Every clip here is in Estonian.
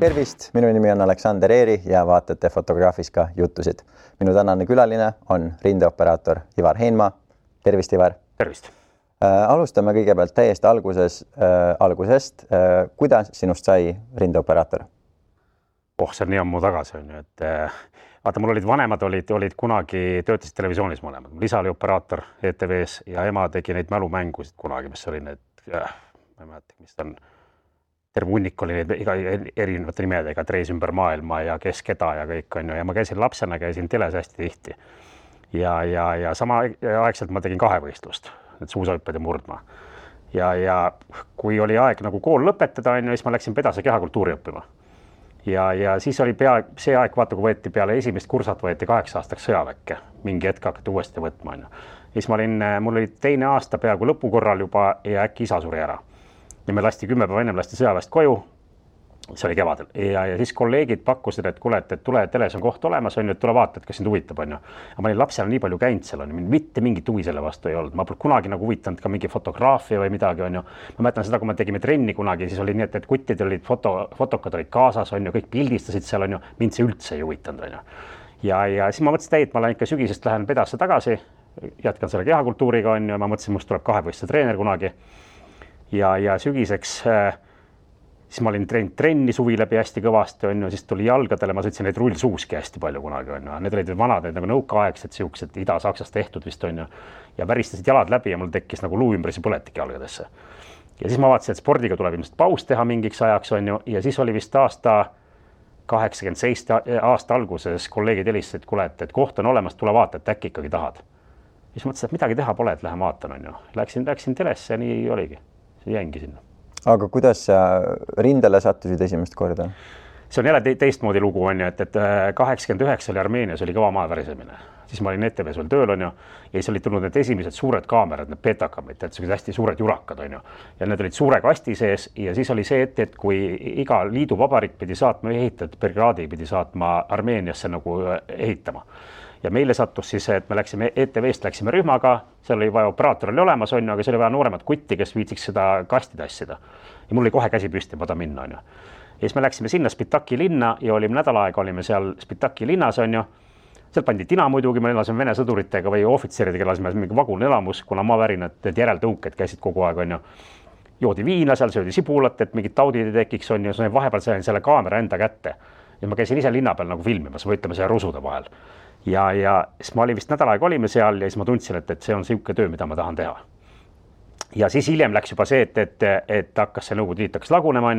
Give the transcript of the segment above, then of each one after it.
Tervist, minu nimi on Aleksander Eeri ja vaatate Fotograafiska jutusid. Minu tänane külaline on rindeoperaator Ivar Heinma. Tervist, Ivar. Tervist. Alustame kõigepealt täiesti algusest. Kuidas sinust sai rindeoperaator? See on nii ammu tagasi. Vaata, mul olid vanemad, olid kunagi töötasid televisioonis mõlemad. Mul isa oli operaator ETV-s ja ema tegi neid mälumängusid kunagi, mis oli need, ma ei mäleta, mis on, terve hunnik oli neid erinevate nimedega, Treis ümber maailma ja Kes keda ja kõik on ju. Ja ma käisin lapsena, käisin teles hästi tihti. Ja sama aegselt ma tegin kahevõistlust, need suusahüpped ja murdma. Ja kui oli aeg nagu kool lõpetada, siis ma läksin pedase kehakultuuri õppima. Ja siis oli see aeg, vaata, kui võeti peale esimest kursat, võeti 8 aastaks sõjaväkke. Mingi hetk hakati uuesti võtma. Siis mul oli teine aasta peaaegu lõpukorral juba ja äkki isa suri ära. Ja me lasti 10 päeva ennem sõjaväest koju, see oli kevadel. Ja siis kolleegid pakkusid, et kuule, et tule, teles on koht olemas, et tule vaata, et kas sind huvitab. Ja ma olin lapsena nii palju käinud seal, mitte mingit huvi selle vastu ei olnud. Ma pole kunagi nagu huvitanud ka mingi fotograafia või midagi. Ma mäletan seda, kui me tegime trenni kunagi, siis oli nii, et kuttid olid, fotokad olid kaasas, kõik pildistasid seal, mind see üldse ei huvitanud. Ja siis ma mõtlesin, et ma lähen ikka sügisest lähen pedasse tagasi, jätkan selle kehakultuuriga, ma mõtlesin, must tuleb kahevõistluse treener kunagi. Ja sügiseks siis ma olin trenni suvi läbi hästi kõvasti, siis tuli jalgadele, ma sõitsin neid rullsuuski hästi palju kunagi. Need olid vanad, nagu nõukaaegsed siuksed Ida-Saksast tehtud vist ja väristasid jalad läbi ja mul tekkis nagu luu ümbrisi põletik jalgadesse. Ja siis ma vaatasin, et spordiga tuleb ilmselt paus teha mingiks ajaks ja siis oli vist aasta 87 aasta alguses kolleegid helistasid, et kuule, et koht on olemas, tule vaata, et äkki ikkagi tahad. Siis mõtlesin, et midagi teha pole, et lähen vaatan. Läksin telesse ja nii oligi. See jängi sinna. Aga kuidas sa rindele sattusid esimest korda? See on jälle teistmoodi lugu, et 89 oli Armeenias oli kõva maavärisemine. Siis ma olin ETV-s veel tööl ja siis olid tulnud need esimesed suured kaamerad, need betakamid, et hästi suured jurakad ja need olid suure kasti sees ja siis oli see, et kui iga liiduvabariik pidi saatma ehitajat, brigaadi pidi saatma Armeeniasse nagu ehitama. Ja meile sattus siis, et me läksime ETV-st, läksime rühmaga, seal oli vaja operaator oli olemas, aga see oli vaja nooremat kutti, kes viitsiks seda kasti tassida. Ja mul oli kohe käsi püsti, ma ta minna. Ja siis me läksime sinna Spitaki linna ja olime nädal aega, olime seal Spitaki linnas. Seal pandi tina muidugi, me elasime Vene sõduritega või ohvitseridega, elasime mingi vagunelamus, kuna maavärinad, need järeltõuked käisid kogu aeg. Joodi viina, seal söödi sibulat, et mingid taudid ei tekiks. Ja vahepeal sain selle kaamera enda kätte. Ja ma käisin ise linna peal nagu filmimas, võitleme selle rusude vahel. Ja siis ma olin vist nädal aega olime seal ja siis ma tundsin, et see on siuke töö, mida ma tahan teha. Ja siis hiljem läks juba see, et hakkas see Nõukogude Liit hakkas lagunema.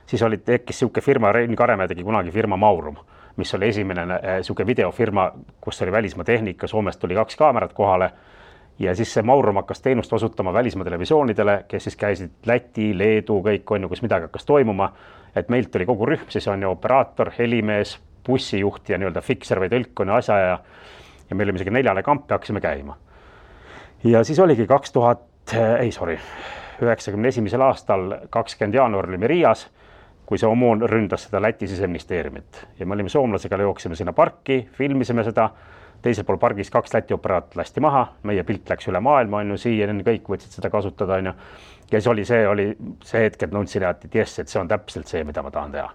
Siis tekkis siuke firma, Rein Karemäe tegi kunagi firma Maurum, mis oli esimene siuke videofirma, kus oli välismaa tehnika, Soomest tuli 2 kaamerat kohale. Ja siis see Maurum hakkas teenust osutama välismaa televisioonidele, kes siis käisid Läti, Leedu, kõik kus midagi hakkas toimuma. Et meilt oli kogu rühm, siis on operaator, helimees, bussijuht ja fikser või tõlk asja ja meil oli isegi 4 kampi hakkasime käima. Ja siis oligi 91. aastal 20. jaanuar olime Riias, kui see OMON ründas seda Läti siseministeeriumit. Ja me olime soomlasega, jooksime sinna parki, filmisime seda, teisel pool pargis 2 Läti operaat lasti maha, meie pilt läks üle maailma, siia kõik võtsid seda kasutada. Ja siis oli see hetk, et nõudsin, et see on täpselt see, mida ma tahan teha.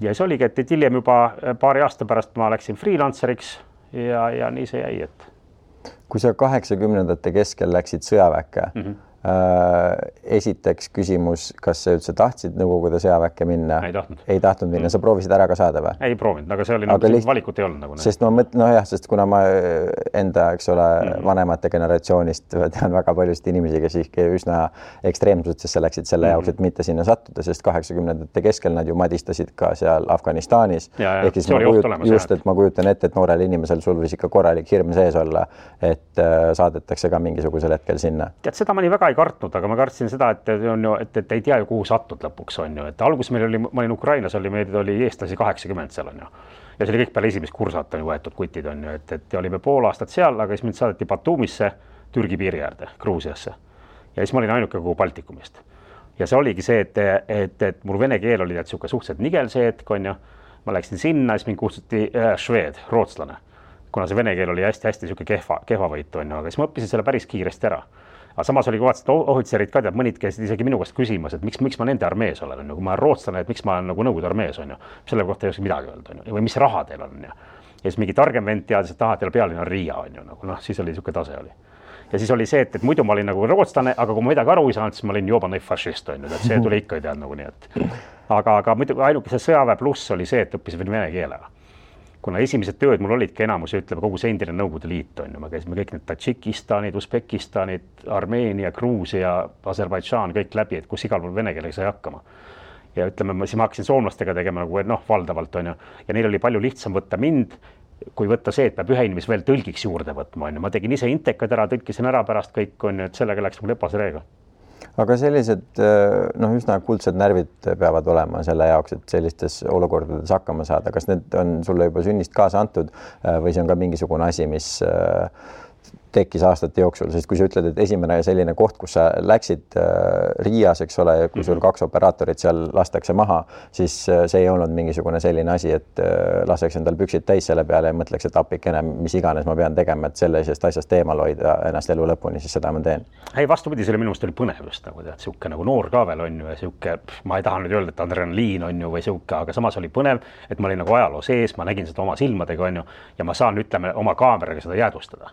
Ja see oligi, et hiljem juba paari aasta pärast ma läksin freelanceriks ja nii see jäi. Kui sa 80-ndate keskel läksid sõjaväkke, esiteks küsimus, kas sa üldse tahtsid Nõukogude sõjaväkke minna? Ei tahtnud minna. Sa proovisid ära ka saada või? Ei proovinud, aga see oli valikut ei olnud. Sest kuna ma enda, vanemate generatsioonist tean väga paljusid inimesi, kes ikka üsna ekstreemsusesse läksid selle jaoks, et mitte sinna sattuda, sest 80-ndate keskel nad ju madistasid ka seal Afganistanis. Ehk siis ma kujutan ette, et noorel inimesel sul võis ikka korralik hirm sees olla, et saadetakse ka mingisugusel hetkel sinna. Tead, seda ma nii väga ei kartnud, aga ma kartsin seda, et ei tea ju, kuhu satud lõpuks on ju. Et alguses ma olin Ukrainas, meil oli eestlasi 80 seal on ju. Ja see oli kõik peale esimest kursat on võetud kutid on ju, et olime pool aastat seal, aga siis mind saadeti Batumisse, Türgi piiri äärde, Gruusiasse. Ja siis ma olin ainuke kogu Baltikumist. Ja see oligi see, et mul vene keel oli suhteliselt nigel see hetk on ju. Ma läksin sinna, siis mind kutsuti šveed, rootslane, kuna see vene keel oli hästi kehva võitu on ju, aga siis ma õppisin selle päris kiiresti ära. Aga samas oli kohati ohvitserid ka, tead, mõnid käisid isegi minu käest küsimas, et miks ma nende armees olen, kui ma olen rootslane, et miks ma olen nagu Nõukogude armees, on ju. Selle kohta ei oska midagi öelda, on ju. Või mis raha teil on, ja siis mingi targem vend teadis, et teil pealinn on Riia, on ju, nagu siis oli niisugune tase oli. Ja siis oli see, et muidu ma olin nagu rootslane, aga kui ma midagi aru ei saanud, siis ma olin joobane fašist, on ju, et see tuli ikka ei tead nagu nii, et aga muidu ainuke see sõjaväe pluss oli see, et õppisin vene keelega. Kuna esimesed tööd mul olidki enamus, ütleme, kogu see endine Nõukogude Liit, on ju, me käisime kõik need Tadžikistanid, Usbekistanid, Armeenia, Gruusia, Aserbaidžaan, kõik läbi, et kus igal pool vene keelega sai hakkama. Ja ütleme, siis ma hakkasin soomlastega tegema nagu valdavalt, on ju, ja neil oli palju lihtsam võtta mind, kui võtta see, et peab ühe inimese veel tõlgiks juurde võtma, on ju. Ma tegin ise intekad ära, tõlkisin ära pärast kõik, on ju, et sellega läks mul lepase reega. Aga sellised üsna kuldsed närvid peavad olema selle jaoks, et sellistes olukordades hakkama saada. Kas need on sulle juba sünnist kaasa antud või see on ka mingisugune asi, mis tekkis aastate jooksul, sest kui sa ütled, et esimene selline koht, kus sa läksid Riias, eks ole, kui sul 2 operaatorit seal lastakse maha, siis see ei olnud mingisugune selline asi, et laseks endal püksid täis selle peale ja mõtleks, et appikene, mis iganes ma pean tegema, et sellisest asjast eemal hoida ennast elu lõpuni, siis seda ma teen. Ei, vastupidi, selle minu meelest oli põnev just nagu tead, siuke nagu noor ka veel on ju ja siuke, ma ei taha nüüd öelda, et adrenaliin on ju või siuke, aga samas oli põnev, et ma olin nagu ajaloo sees, ma nägin seda oma silmadega on ju ja ma saan, ütleme, oma kaameraga seda jäädvustada.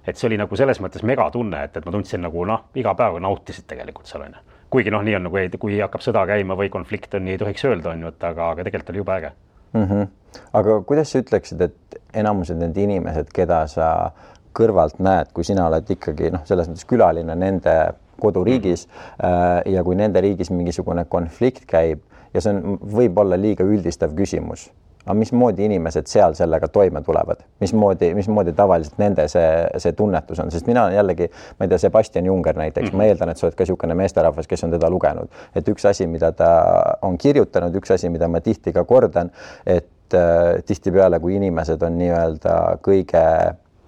Et see oli nagu selles mõttes megatunne, et ma tundsin nagu iga päev nautisid tegelikult seal on. Kuigi nii on nagu, kui hakkab sõda käima või konflikt on, nii ei tohiks öelda on ju, et aga tegelikult oli juba äge. Aga kuidas sa ütleksid, et enamused need inimesed, keda sa kõrvalt näed, kui sina oled ikkagi selles mõttes külaline nende koduriigis ja kui nende riigis mingisugune konflikt käib ja see on võib-olla liiga üldistav küsimus, aga mismoodi inimesed seal sellega toime tulevad? Mismoodi tavaliselt nende see tunnetus on? Sest mina jällegi, ma ei tea, Sebastian Junger näiteks, ma eeldan, et sa oled ka niisugune meesterahvas, kes on teda lugenud. Et üks asi, mida ta on kirjutanud, üks asi, mida ma tihti ka kordan, et tihtipeale, kui inimesed on nii-öelda kõige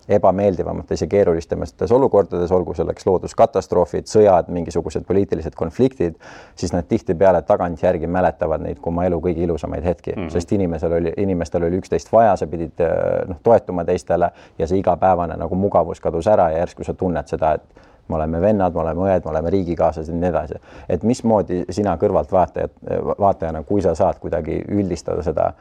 ebameeldivamates ja keerulistemates olukordades, olgu selleks looduskatastroofid, sõjad, mingisugused poliitilised konfliktid, siis nad tihtipeale tagantjärgi mäletavad neid kui oma elu kõige ilusamaid hetki, sest inimestel oli üksteist vaja, sa pidid toetuma teistele ja see igapäevane nagu mugavus kadus ära ja järsku sa tunned seda, et me oleme vennad, me oleme õed, me oleme riigikaaslased ja nii edasi. Et mismoodi sina kõrvalt vaatajana, kui sa saad kuidagi üldistada seda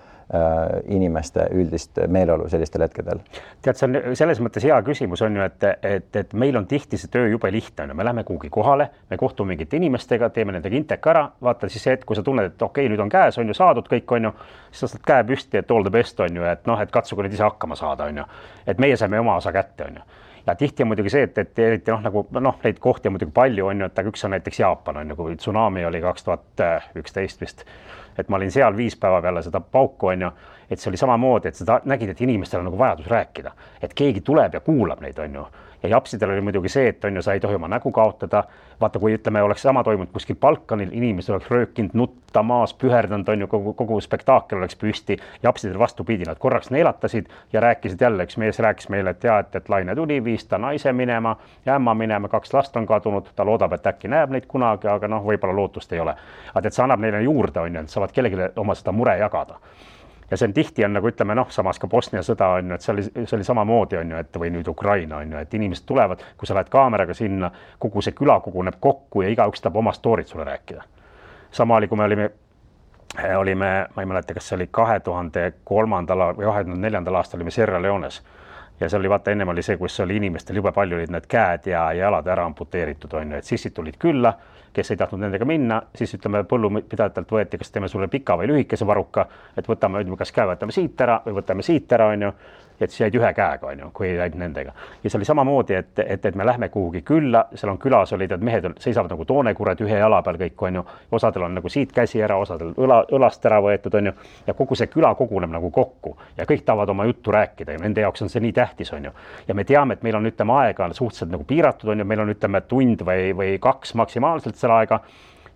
inimeste üldist meeleolu sellistel hetkedel? Tead, see on selles mõttes hea küsimus on ju, et meil on tihti see töö jube lihtne. Me läheme kuhugi kohale, me kohtume mingite inimestega, teeme nendega intek ära, vaata siis see, et kui sa tunned, et okei, nüüd on käes, on ju saadud kõik, on ju, siis sa saad käe püsti, et all the best on ju, et katsuge nüüd ise hakkama saada, on ju. Et meie saime oma osa kätte, on ju. Ja tihti on muidugi see, et eriti neid kohti on muidugi palju on ju, et üks on näiteks Jaapan on ju, kui tsunami oli 2011 vist, et ma olin seal 5 päeva peale seda pauku on ju, et see oli samamoodi, et seda nägid, et inimestel on nagu vajadus rääkida, et keegi tuleb ja kuulab neid on ju. Ja japsidel oli muidugi see, et on ju, sa ei tohi oma nägu kaotada. Vaata, kui ütleme, oleks sama toimunud kuskil Balkanil, inimesed oleks röökinud, nutta maas, püherdanud, on ju, kogu spektaakel oleks püsti. Japsidel vastupidi, nad korraks neelatasid ja rääkisid jälle, üks mees rääkis meile, et laine tuli, viis ta naise minema ja ämma minema, 2 last on kadunud, ta loodab, et äkki näeb neid kunagi, aga võib-olla lootust ei ole. Aga et see annab neile juurde, on ju, et saavad kellelegi oma seda mure jagada. Ja see on tihti on nagu ütleme, samas ka Bosnia sõda on ju, et see oli samamoodi on ju, et või nüüd Ukraina on ju, et inimesed tulevad, kui sa lähed kaameraga sinna, kogu see küla koguneb kokku ja igaüks tahab oma stoorit sulle rääkida. Sama oli, kui me olime, ma ei mäleta, kas see oli 2003. või 2004. aastal olime Sierra Leones. Ja see oli, vaata, ennem oli see, kus oli inimestel jube palju olid need käed ja jalad ära amputeeritud, on ju, et sissid tulid külla, kes ei tahtnud nendega minna, siis ütleme põllupidajatelt võeti, kas teeme sulle pika või lühikese varuka, et võtame, kas käe võtame siit ära või võtame siit ära, on ju, et siis jäid ühe käega, on ju, kui jäid nendega. Ja see oli samamoodi, et me lähme kuhugi külla, seal on külas olid, et mehed seisavad nagu toonekured ühe jala peal kõik, on ju, osadel on nagu siit käsi ära, osadel õlast ära võetud, on ju, ja kogu see küla koguneb nagu kokku ja kõik tahavad oma juttu rääkida ja nende jaoks on see nii tähtis, on ju. Ja me teame, et meil on, ütleme, aega suhteliselt nagu piiratud, on ju, meil on, ütleme, tund või 2 maksimaalselt selle aega.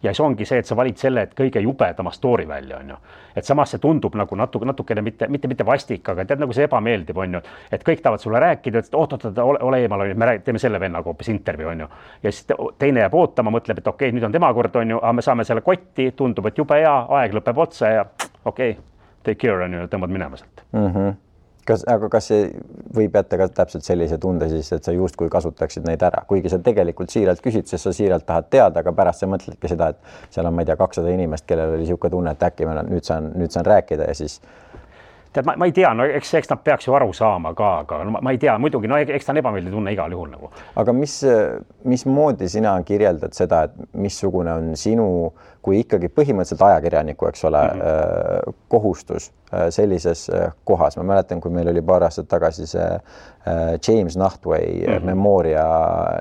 Ja see ongi see, et sa valid selle, et kõige jubedama story välja, on ju. Et samas see tundub nagu natukene mitte vastik, aga tead, nagu see ebameeldib, on ju. Et kõik tahavad sulle rääkida, et ole eemal, me teeme selle vennaga hoopis intervjuu, on ju. Ja siis teine jääb ootama, mõtleb, et okei, nüüd on tema kord, on ju, aga me saame selle kotti, tundub, et jube hea, aeg lõpeb otsa ja okei, take care, on ju, tõmbad minema sealt. Aga kas see võib jätta ka täpselt sellise tunde siis, et sa justkui kasutaksid neid ära, kuigi sa tegelikult siiralt küsid, sest sa siiralt tahad teada, aga pärast sa mõtledki seda, et seal on, ma ei tea, 200 inimest, kellel oli niisugune tunne, et äkki nüüd saan rääkida ja siis tead, ma ei tea, no eks nad peaks ju aru saama ka, aga ma ei tea, muidugi, no eks ta on ebameeldiv tunne igal juhul nagu. Aga mismoodi sina kirjeldad seda, et missugune on sinu, kui ikkagi põhimõtteliselt ajakirjaniku, eks ole, kohustus sellises kohas. Ma mäletan, kui meil oli paar aastat tagasi see James Nachtwey memooria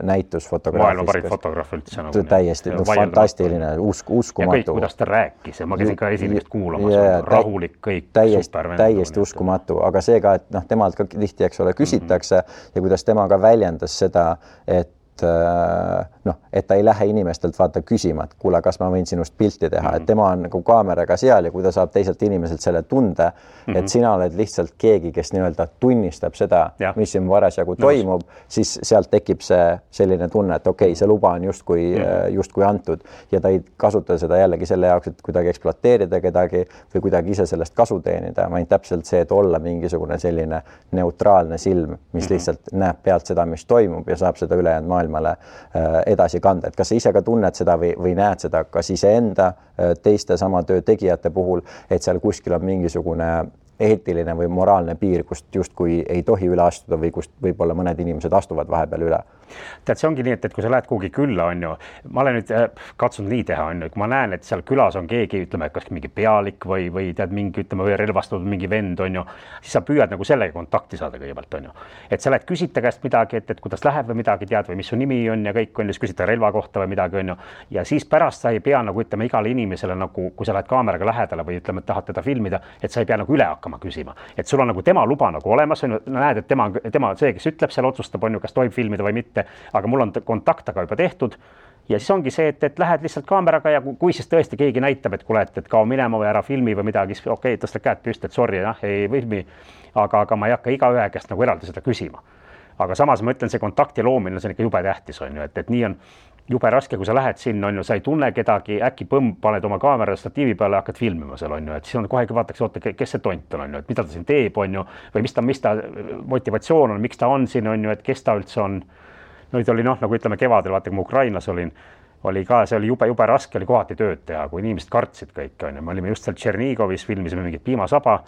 näitus fotograafist. Maailma parim fotograaf üldse. Nagu täiesti fantastiline, uskumatu. Ja kõik, kuidas ta rääkis ja ma käisin ka esimest kuulamas, rahulik kõik. Täiesti uskumatu, aga see ka, et temalt ka tihti, eks ole, küsitakse ja kuidas tema ka väljendas seda, et ta ei lähe inimestelt vaata küsima, et kuule, kas ma võin sinust pilti teha, et tema on nagu kaameraga seal ja kui ta saab teiselt inimeselt selle tunde, et sina oled lihtsalt keegi, kes nii-öelda tunnistab seda, mis siin parasjagu toimub, siis sealt tekib see selline tunne, et okei, see luba on justkui antud ja ta ei kasuta seda jällegi selle jaoks, et kuidagi ekspluateerida kedagi või kuidagi ise sellest kasu teenida, vaid täpselt see, et olla mingisugune selline neutraalne silm, mis lihtsalt näeb pealt seda, mis toimub ja saab seda ülejäänud maailmale edasi kanda. Et kas sa ise ka tunned seda või näed seda kas iseenda teiste sama töö tegijate puhul, et seal kuskil on mingisugune eetiline või moraalne piir, kust justkui ei tohi üle astuda või kust võib-olla mõned inimesed astuvad vahepeal üle? Tead, see ongi nii, et kui sa lähed kuhugi külla, on ju, ma olen nüüd katsunud nii teha, on ju, kui ma näen, et seal külas on keegi, ütleme, kas mingi pealik või tead mingi, ütleme, või relvastatud mingi vend, on ju, siis sa püüad nagu sellega kontakti saada kõigepealt, on ju. Et sa lähed küsita käest midagi, et kuidas läheb või midagi tead või mis su nimi on ja kõik on, siis küsita relva kohta või midagi, on ju. Ja siis pärast sa ei pea nagu, ütleme, igale inimesele nagu, kui sa lähed kaameraga lähedale või ütleme, et tahad teda filmida, et sa ei pea nagu üle hakkama küsima. Et sul on nagu tema luba nagu olemas, on ju, näed, et tema see, kes ütleb, seal otsustab, on ju, kas tohib filmida või mitte, aga mul on kontakt aga juba tehtud ja siis ongi see, et lähed lihtsalt kaameraga ja kui siis tõesti keegi näitab, et kuule, et kao minema või ära filmi või midagi, siis okei, tõsta käed püsti, et sorry, ei filmi, aga ma ei hakka igaühe käest nagu eraldi seda küsima. Aga samas ma ütlen, see kontakti loomine, see on ikka jube tähtis, on ju, et nii on jube raske, kui sa lähed sinna, on ju, sa ei tunne kedagi, äkki paned oma kaamera statiivi peale ja hakkad filmima seal, on ju, et siis on kohe vaataks, oota, kes see tont on, ju, et mida ta siin teeb, on ju, või mis ta motivatsioon on, miks ta on siin, on ju, et kes ta üldse on. Nüüd oli nagu ütleme kevadel, vaata, kui ma Ukrainas oli ka, see oli jube raske, oli kohati tööd teha, kui inimesed kartsid kõik, on ju. Me olime just seal Tšernigovis, filmisime mingit piimasaba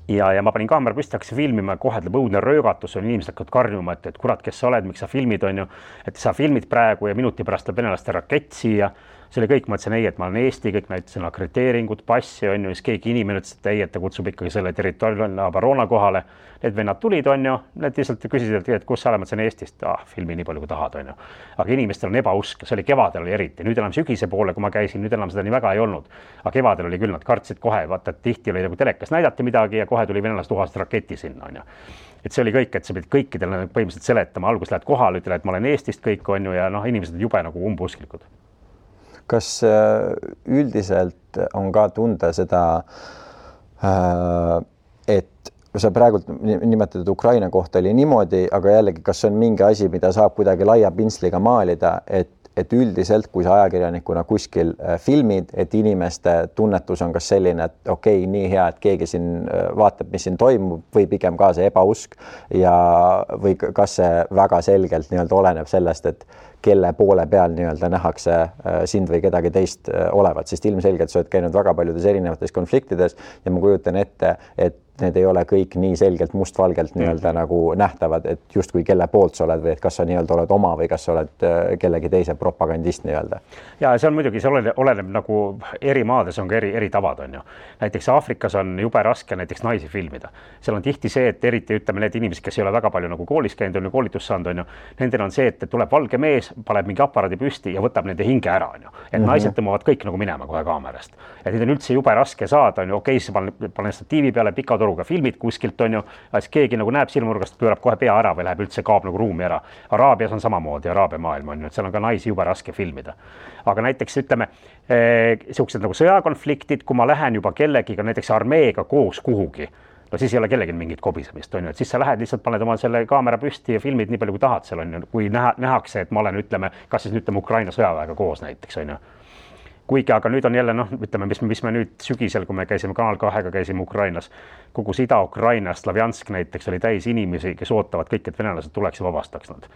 ja ma panin kaamera püsti, hakkasin filmima, kohe tuleb õudne röögatus, on inimesed hakkavad karjuma, et kurat, kes sa oled, miks sa filmid, on ju, et sa filmid praegu ja minuti pärast tuleb venelaste rakett siia. See oli kõik, ma ütlesin ei, et ma olen Eesti, kõik näitasin akrediteeringut, passi, on ju, siis keegi inimene ütles, et ei, et ta kutsub ikkagi selle territoriaalne Abarona kohale. Need vennad tulid, on ju, need lihtsalt küsisid, et kus sa oled, ma ütlesin Eestist, filmi nii palju kui tahad, on ju. Aga inimestel on ebausk, see oli kevadel oli eriti, nüüd enam sügise poole, kui ma käisin, nüüd enam seda nii väga ei olnud. Aga kevadel oli küll, nad kartsid kohe, vaata, et tihti oli nagu telekas näidati midagi ja kohe tuli venelased tuhast raketi sinna, on ju. Et see oli kõik, et sa pidid kõikidele põhimõtteliselt seletama, algus lähed kohale, ütle, et ma olen Eestist kõik, on ju, ja inimesed jube nagu umbusklikud. Kas üldiselt on ka tunda seda, et sa praegult nimetatud Ukraina kohta oli niimoodi, aga jällegi, kas on mingi asi, mida saab kuidagi laia pintsliga maalida, et üldiselt, kui sa ajakirjanikuna kuskil filmid, et inimeste tunnetus on kas selline, et okei, nii hea, et keegi siin vaatab, mis siin toimub, või pigem ka see ebausk ja või kas see väga selgelt nii-öelda oleneb sellest, et kelle poole peal nii-öelda nähakse sind või kedagi teist olevat, sest ilmselgelt sa oled käinud väga paljudes erinevates konfliktides ja ma kujutan ette, et need ei ole kõik nii selgelt mustvalgelt nii-öelda nagu nähtavad, et justkui kelle poolt sa oled või et kas sa nii-öelda oled oma või kas sa oled kellegi teise propagandist nii-öelda. Ja see on muidugi, see oleneb nagu eri maades on ka eri tavad, on ju. Näiteks Aafrikas on jube raske näiteks naisi filmida. Seal on tihti see, et eriti ütleme need inimesed, kes ei ole väga palju nagu koolis käinud, on ju koolitust saanud, on ju. Nendel on see, et tuleb valge mees, paneb mingi aparaadi püsti ja võtab nende hinge ära, on ju. Et naised tõmbavad kõik nagu minema kohe kaamerast. Et neid on üldse jube raske saada, on ju, okei, siis panen statiivi peale pikatoruga filmid kuskilt, on ju, siis keegi nagu näeb silmurgast, pöörab kohe pea ära või läheb üldse kaob nagu ruumi ära. Araabias on samamoodi, Araabia maailm on ju, et seal on ka naisi jube raske filmida. Aga näiteks ütleme, sellised nagu sõjakonfliktid, kui ma lähen juba kellegiga, näiteks armeega koos kuhugi, no siis ei ole kellegi mingit kobisemist, on ju, et siis sa lähed lihtsalt, paned oma selle kaamera püsti ja filmid nii palju kui tahad seal, on ju, kui nähakse, et ma olen, ütleme, kas siis ütleme Ukraina sõjaväega koos näiteks, on ju. kuigi, aga nüüd on jälle ütleme, mis me nüüd sügisel, kui me käisime Kanal 2-ga, käisime Ukrainas, kogu see Ida-Ukraina, Slavjansk näiteks oli täis inimesi, kes ootavad kõik, et venelased tuleks ja vabastaks nad.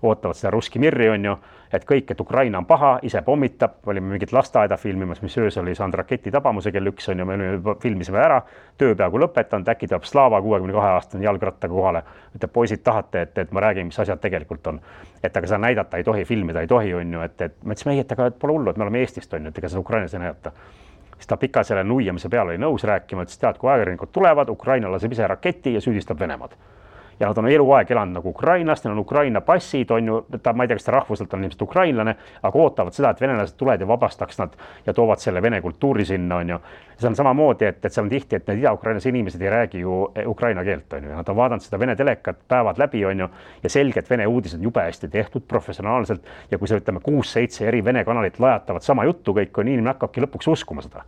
Ootavad seda Russki Mirri on ju, et kõik, et Ukraina on paha, ise pommitab, olime mingit lasteaeda filmimas, mis öös oli saanud raketi tabamuse kell 1 on ju, me filmisime ära, töö peaaegu lõpetanud, äkki tuleb Slava 62-aastane jalgrattaga kohale, ütleb, poisid tahate, et ma räägin, mis asjad tegelikult on. Et aga seda näidata ei tohi, filmida ei tohi, on ju, et me ütlesime, ei, et aga pole hullu, et me oleme Eestist on ju, et ega seda Ukrainas ei näidata. Siis ta pika selle nuiamise peale oli nõus rääkima, ütles, tead, kui ajakirjanikud tulevad, Ukraina laseb ise raketi ja süüdistab Venemaad. Ja nad on eluaeg elanud nagu Ukrainast, neil on Ukraina passid, on ju, ma ei tea, kas ta rahvuselt on ilmselt ukrainlane, aga ootavad seda, et venelased tulevad ja vabastaks nad ja toovad selle vene kultuuri sinna, on ju. See on samamoodi, et seal on tihti, et need Ida-Ukrainas inimesed ei räägi ju ukraina keelt, on ju, ja nad on vaadanud seda vene telekat päevad läbi, on ju, ja selgelt vene uudised jube hästi tehtud professionaalselt ja kui see, ütleme, 6-7 eri vene kanalit lajatavad sama juttu kõik, on inimene hakkabki lõpuks uskuma seda.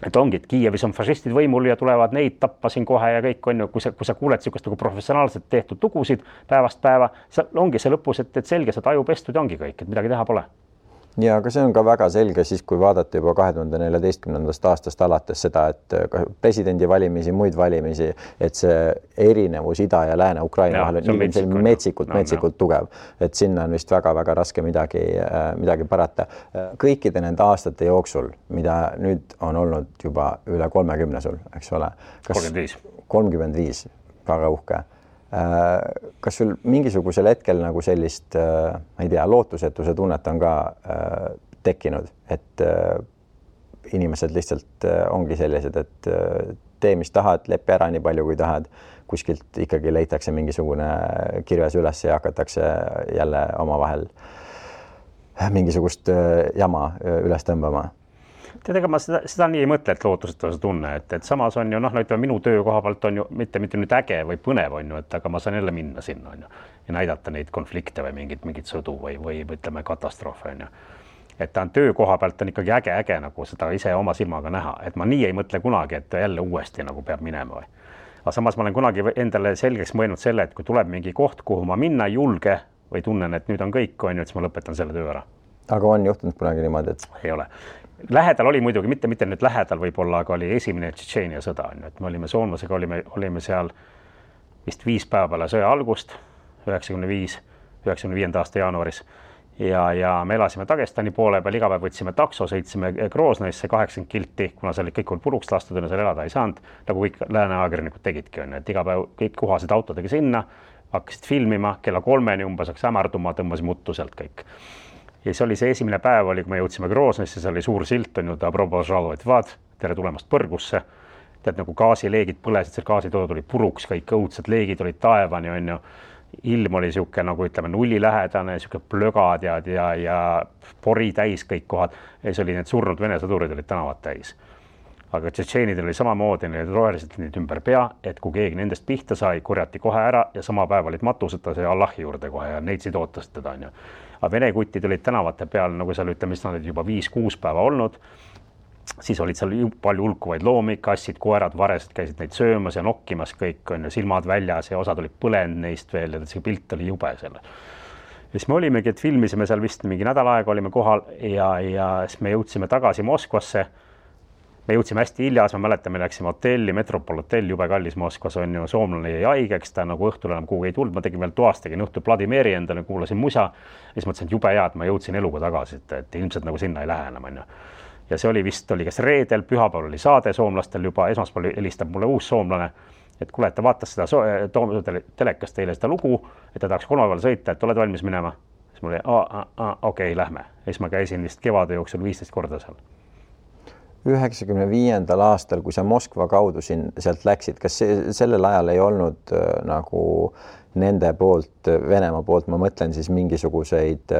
Et ongi, et Kiievis on fašistid võimul ja tulevad neid tappa siin kohe ja kõik on ju, kui sa kuuled sihukest nagu professionaalselt tehtud lugusid päevast päeva, ongi see lõpus, et selge, see taju pestud ja ongi kõik, et midagi teha pole. Ja aga see on ka väga selge siis, kui vaadata juba 2014. aastast alates seda, et presidendi valimisi, muid valimisi, et see erinevus Ida ja Lääne Ukraina vahel on metsikult tugev, et sinna on vist väga-väga raske midagi parata. Kõikide nende aastate jooksul, mida nüüd on olnud juba üle 30 sul, eks ole? 35, väga uhke. Kas sul mingisugusel hetkel nagu sellist, ma ei tea, lootusetuse tunnet on ka tekkinud, et inimesed lihtsalt ongi sellised, et tee, mis tahad, lepi ära nii palju, kui tahad, kuskilt ikkagi leitakse mingisugune kirves üles ja hakatakse jälle omavahel mingisugust jama üles tõmbama? Tead, ega ma seda nii ei mõtle, et lootusetuse tunne, et samas on ju, ütleme, minu töö koha pealt on ju mitte nüüd äge või põnev on ju, et aga ma saan jälle minna sinna on ju ja näidata neid konflikte või mingit sõdu või ütleme katastroofe on ju. Et ta on töö koha pealt on ikkagi äge nagu seda ise oma silmaga näha, et ma nii ei mõtle kunagi, et jälle uuesti nagu peab minema või. Aga samas ma olen kunagi endale selgeks mõelnud selle, et kui tuleb mingi koht, kuhu ma minna ei julge või tunnen, et nüüd on kõik on ju, et siis ma lõpetan selle töö ära. Aga on juhtunud kunagi niimoodi, et ei ole. Lähedal oli muidugi, mitte nüüd lähedal võib-olla, aga oli esimene Tšetšeenia sõda, et me olime soomlasega, olime seal vist 5 päeva peale sõja algust, 95. aasta jaanuaris ja me elasime Dagestani poole peal, iga päev võtsime takso, sõitsime Groznõisse 80 kilti, kuna seal kõik oli puruks lastud ja seal elada ei saanud, nagu kõik lääne ajakirjanikud tegidki, et iga päev kõik kuhasid autodega sinna, hakkasid filmima, kella 3 umbes hakkas hämarduma, tõmbasime uttu sealt kõik. Ja see oli see esimene päev, kui me jõudsime Groznõisse, see oli suur silt, on ju, tere tulemast Põrgusse. Tead, nagu gaasileegid põlesid, seal gaasitood oli puruks, kõik õudsed leegid olid taevani, on ju. Ilm oli sihuke, nagu ütleme, nullilähedane, sihuke plögad ja pori täis kõik kohad. Ja see oli need surnud vene sõdurid olid tänavad täis. Aga tšetšeenidel oli samamoodi, need roheliselt neid ümber pea, et kui keegi nendest pihta sai, korjati kohe ära ja sama päev olid matuseta see Allahi juurde kohe ja neitsid ootasid teda, on ju. Aga vene kutid olid tänavate peal, nagu seal ütleme, mis nad olid juba 5-6 päeva olnud, siis olid seal palju hulkuvaid loomi, kassid, koerad, varesed käisid neid söömas ja nokkimas kõik, on ju, silmad väljas ja osad olid põlenud neist veel ja see pilt oli jube selle. Ja siis me olimegi, et filmisime seal vist mingi nädal aega, olime kohal ja siis me jõudsime tagasi Moskvasse. Me jõudsime hästi hiljas, ma mäletan, me läksime hotelli, Metropol hotell, jube kallis Moskvas on ju, soomlane jäi haigeks, ta nagu õhtul enam kuhugi ei tulnud, ma tegin veel toast, tegin õhtul Vladimiri endale, kuulasin musa ja siis mõtlesin, et jube hea, et ma jõudsin eluga tagasi, et ilmselt nagu sinna ei lähe enam, on ju. Ja see oli vist, oli kas reedel, pühapäeval oli saade soomlastel juba, esmaspäeval helistab mulle uus soomlane, et kuule, et ta vaatas seda telekast teile seda lugu, et ta tahaks kolmapäeval sõita, et oled valmis minema. Siis mul oli, okei, lähme. Ja siis ma käisin vist kevade jooksul 15 korda seal. 95. aastal, kui sa Moskva kaudu sealt läksid, kas sellel ajal ei olnud nagu nende poolt, Venemaa poolt, ma mõtlen siis mingisuguseid,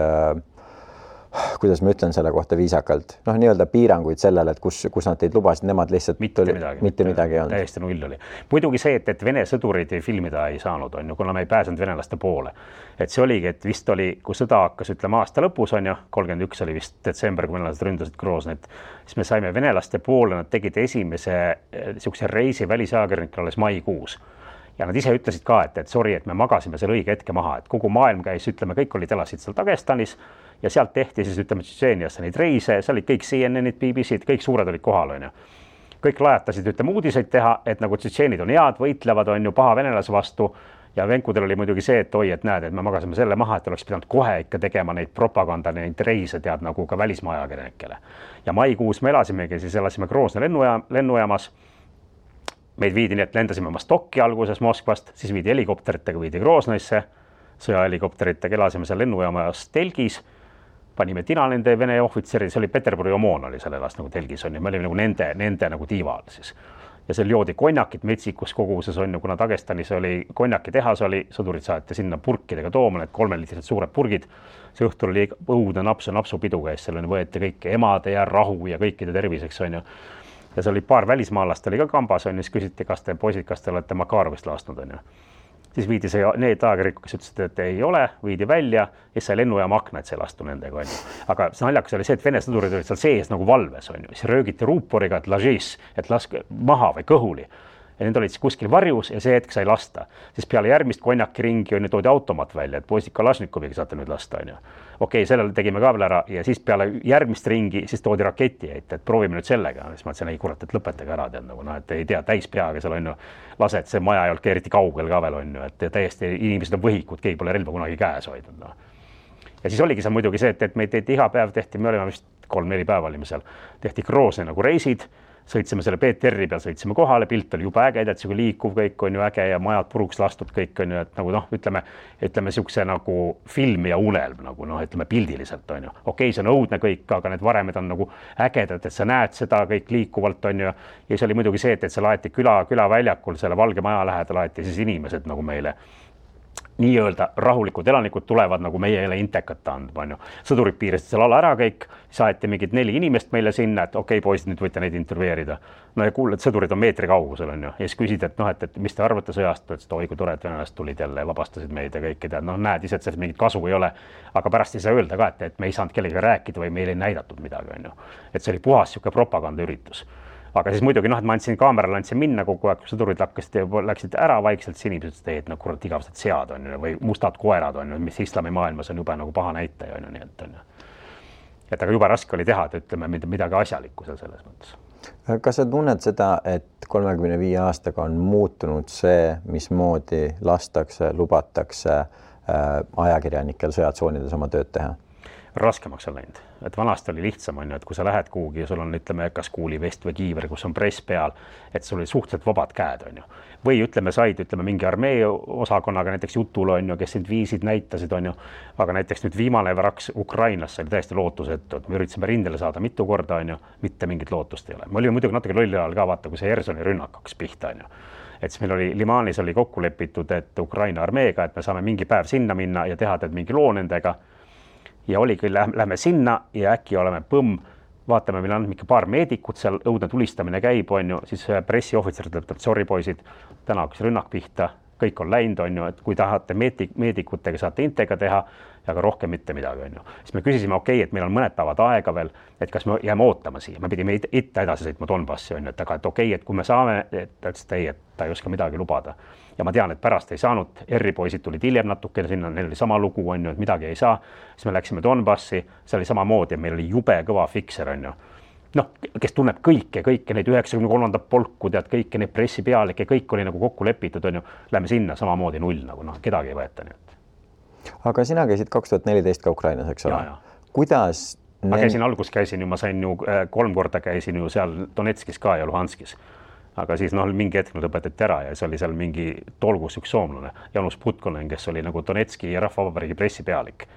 kuidas ma ütlen selle kohta viisakalt, nii-öelda piiranguid sellele, et kus nad teid lubasid, nemad lihtsalt mitte midagi ei olnud. Täiesti null oli. Muidugi see, et vene sõdurid filmida ei saanud, on ju, kuna me ei pääsenud venelaste poole. Et see oligi, et vist oli, kui sõda hakkas, ütleme aasta lõpus, on ju, 31 oli vist detsember, kui venelased ründasid Groznit, siis me saime venelaste poole, nad tegid esimese sihukese reisi välisajakirjanikele alles maikuus. ja nad ise ütlesid ka, et sorry, et me magasime selle õige hetke maha, et kogu maailm käis, ütleme, kõik elasid seal Dagestanis ja sealt tehti siis, ütleme, Tšetšeeniasse neid reise, seal olid kõik CNN-id, BBC-d, kõik suured olid kohal, on ju. Kõik lajatasid, ütleme, uudiseid teha, et nagu tšetšeenid on head, võitlevad, on ju, paha venelase vastu ja venkudel oli muidugi see, et oi, et näed, et me magasime selle maha, et oleks pidanud kohe ikka tegema neid propaganda, neid reise tead nagu ka välismaa ajakirjanikele. Ja maikuus me elasime Groznõi lennujaamas. Meid viidi nii, et lendasime Vostokki alguses Moskvast, siis viidi helikopteritega, viidi Groznõisse, sõjahelikopteritega elasime seal lennujaamas telgis, panime tina nende Vene ohvitseri, see oli Peterburi Omon oli seal elas nagu telgis on ja me olime nagu nende nagu tiival siis. Ja seal joodi konjakit metsikus koguses on ju, kuna Dagestanis oli konjaki tehas oli, sõdurid saati sinna purkidega tooma, need 3-liitrised suured purgid. See õhtul oli õudne napsupidu käis, seal võeti kõik emade ja rahu ja kõikide terviseks on ju. Ja see oli paar välismaalast oli ka kambas on ju, siis küsiti, kas te poisid, kas te olete Makarovist laastnud on ju. Siis viidi see, need ajakirjanikud, kes ütlesid, et ei ole, viidi välja ja sai lennujaama akna, et see lastu nendega on ju. Aga see naljakas oli see, et Vene sõdurid olid seal sees nagu valves on ju, siis röögiti ruuporiga, et lažis, et laske maha või kõhuli. Ja need olid siis kuskil varjus ja see hetk sai lasta. Siis peale järgmist konjaki ringi on ju toodi automat välja, et poisid Kalašnikoviga saate nüüd lasta on ju. Okei, sellele tegime ka veel ära ja siis peale järgmist ringi siis toodi raketi ette, et proovime nüüd sellega. Siis ma ütlesin, ei kurat, et lõpetage ära tead nagu, et ei tea, täis peaga seal on ju lased, see maja ei olnud eriti kaugel ka veel on ju, et täiesti inimesed on võhikud, keegi pole relva kunagi käes hoidnud. No. Ja siis oligi seal muidugi see, et meid tehti iga päev tehti, me olime vist 3-4 päeva olime seal, tehti Groznõi nagu reisid, sõitsime selle PTR-i peal, sõitsime kohale, pilt oli juba äge, et see liikuv kõik on ju äge ja majad puruks lastud kõik on ju, et nagu noh, ütleme siukse nagu film ja unelm nagu noh, ütleme pildiliselt on ju. Okei, see on õudne kõik, aga need varemed on nagu ägedad, et sa näed seda kõik liikuvalt on ju. Ja see oli muidugi see, et see laeti külaväljakul selle Valge Maja lähedal laeti siis inimesed nagu meile nii-öelda rahulikud elanikud tulevad nagu meie jälle intekat andma, on ju. Sõdurid piirasid seal ala ära kõik, saeti mingid 4 inimest meile sinna, et okei, poisid, nüüd võite neid intervjueerida. No ja kuuled, sõdurid on meetri kaugusel, on ju. Ja siis küsid, et noh, et mis te arvate sõjast, et oi, kui tore, et venelased tulid jälle ja vabastasid meid ja kõike tead. Noh, näed ise, et sellest mingit kasu ei ole, aga pärast ei saa öelda ka, et me ei saanud kellega rääkida või meil ei näidatud midagi, on ju. Et see oli puhas siuke propagandaüritus. Aga siis muidugi noh, et ma andsin kaamerale, andsin minna kogu aeg, kui sõdurid läksid ära vaikselt, siis inimesed ütlesid, et no kurat igavesed sead on ju, või mustad koerad on ju, mis islami maailmas on juba nagu paha näitaja on ju, nii et on ju. Et aga juba raske oli teha, et ütleme midagi asjalikku seal selles mõttes. Kas sa tunned seda, et 35 aastaga on muutunud see, mismoodi lastakse, lubatakse ajakirjanikel sõjatsoonides oma tööd teha? Raskemaks on läinud, et vanasti oli lihtsam on ju, et kui sa lähed kuhugi ja sul on ütleme kas kuulivest või kiiver, kus on press peal, et sul oli suhteliselt vabad käed on ju. Või ütleme said mingi armee osakonnaga näiteks jutul on ju, kes sind viisid, näitasid on ju, aga näiteks nüüd viimane vraks Ukrainasse oli täiesti lootusetu, et me üritasime rindele saada mitu korda on ju, mitte mingit lootust ei ole. Me olime muidugi natuke lolli ajal ka vaata, kui see Hersoni rünnak hakkas pihta on ju. Et siis meil oli Limanis oli kokku lepitud, et Ukraina armeega, et me saame mingi päev sinna minna ja teha meil mingi loo nendega. Ja oli küll, lähme sinna ja äkki oleme põmm, vaatame, meil on mingi paar meedikut seal, õudne tulistamine käib, on ju, siis pressiohvitser ütleb, et sorry poisid, täna hakkas rünnak pihta, kõik on läinud, on ju, et kui tahate meedikutega saate intega teha, aga rohkem mitte midagi, on ju. Siis me küsisime, okei, et meil on mõned päevad aega veel, et kas me jääme ootama siia, me pidime itta edasi sõitma Donbassi, on ju, et aga et okei, et kui me saame, et ta ütles, et ei, et ta ei oska midagi lubada. Ja ma tean, et pärast ei saanud, R-poisid tulid hiljem natuke sinna, neil oli sama lugu, on ju, et midagi ei saa. Siis me läksime Donbassi, see oli samamoodi, meil oli jube kõva fikser, on ju. Noh, kes tunneb kõike neid 93. polku, tead, kõike neid pressipealikke, kõik oli nagu kokku lepitud, on ju. Lähme sinna samamoodi null, nagu noh, kedagi ei võeta nii. Aga sina käisid 2014 ka Ukrainas, eks ole? Kuidas? Ma käisin ju, ma sain ju 3 korda käisin ju seal Donetskis ka ja Luhanskis. Aga siis noh, mingi hetk nad õpetati ära ja see oli seal mingi tolgus üks soomlane, Janus Putkonen, kes oli nagu Donetski ja Rahvavabariigi pressipealik.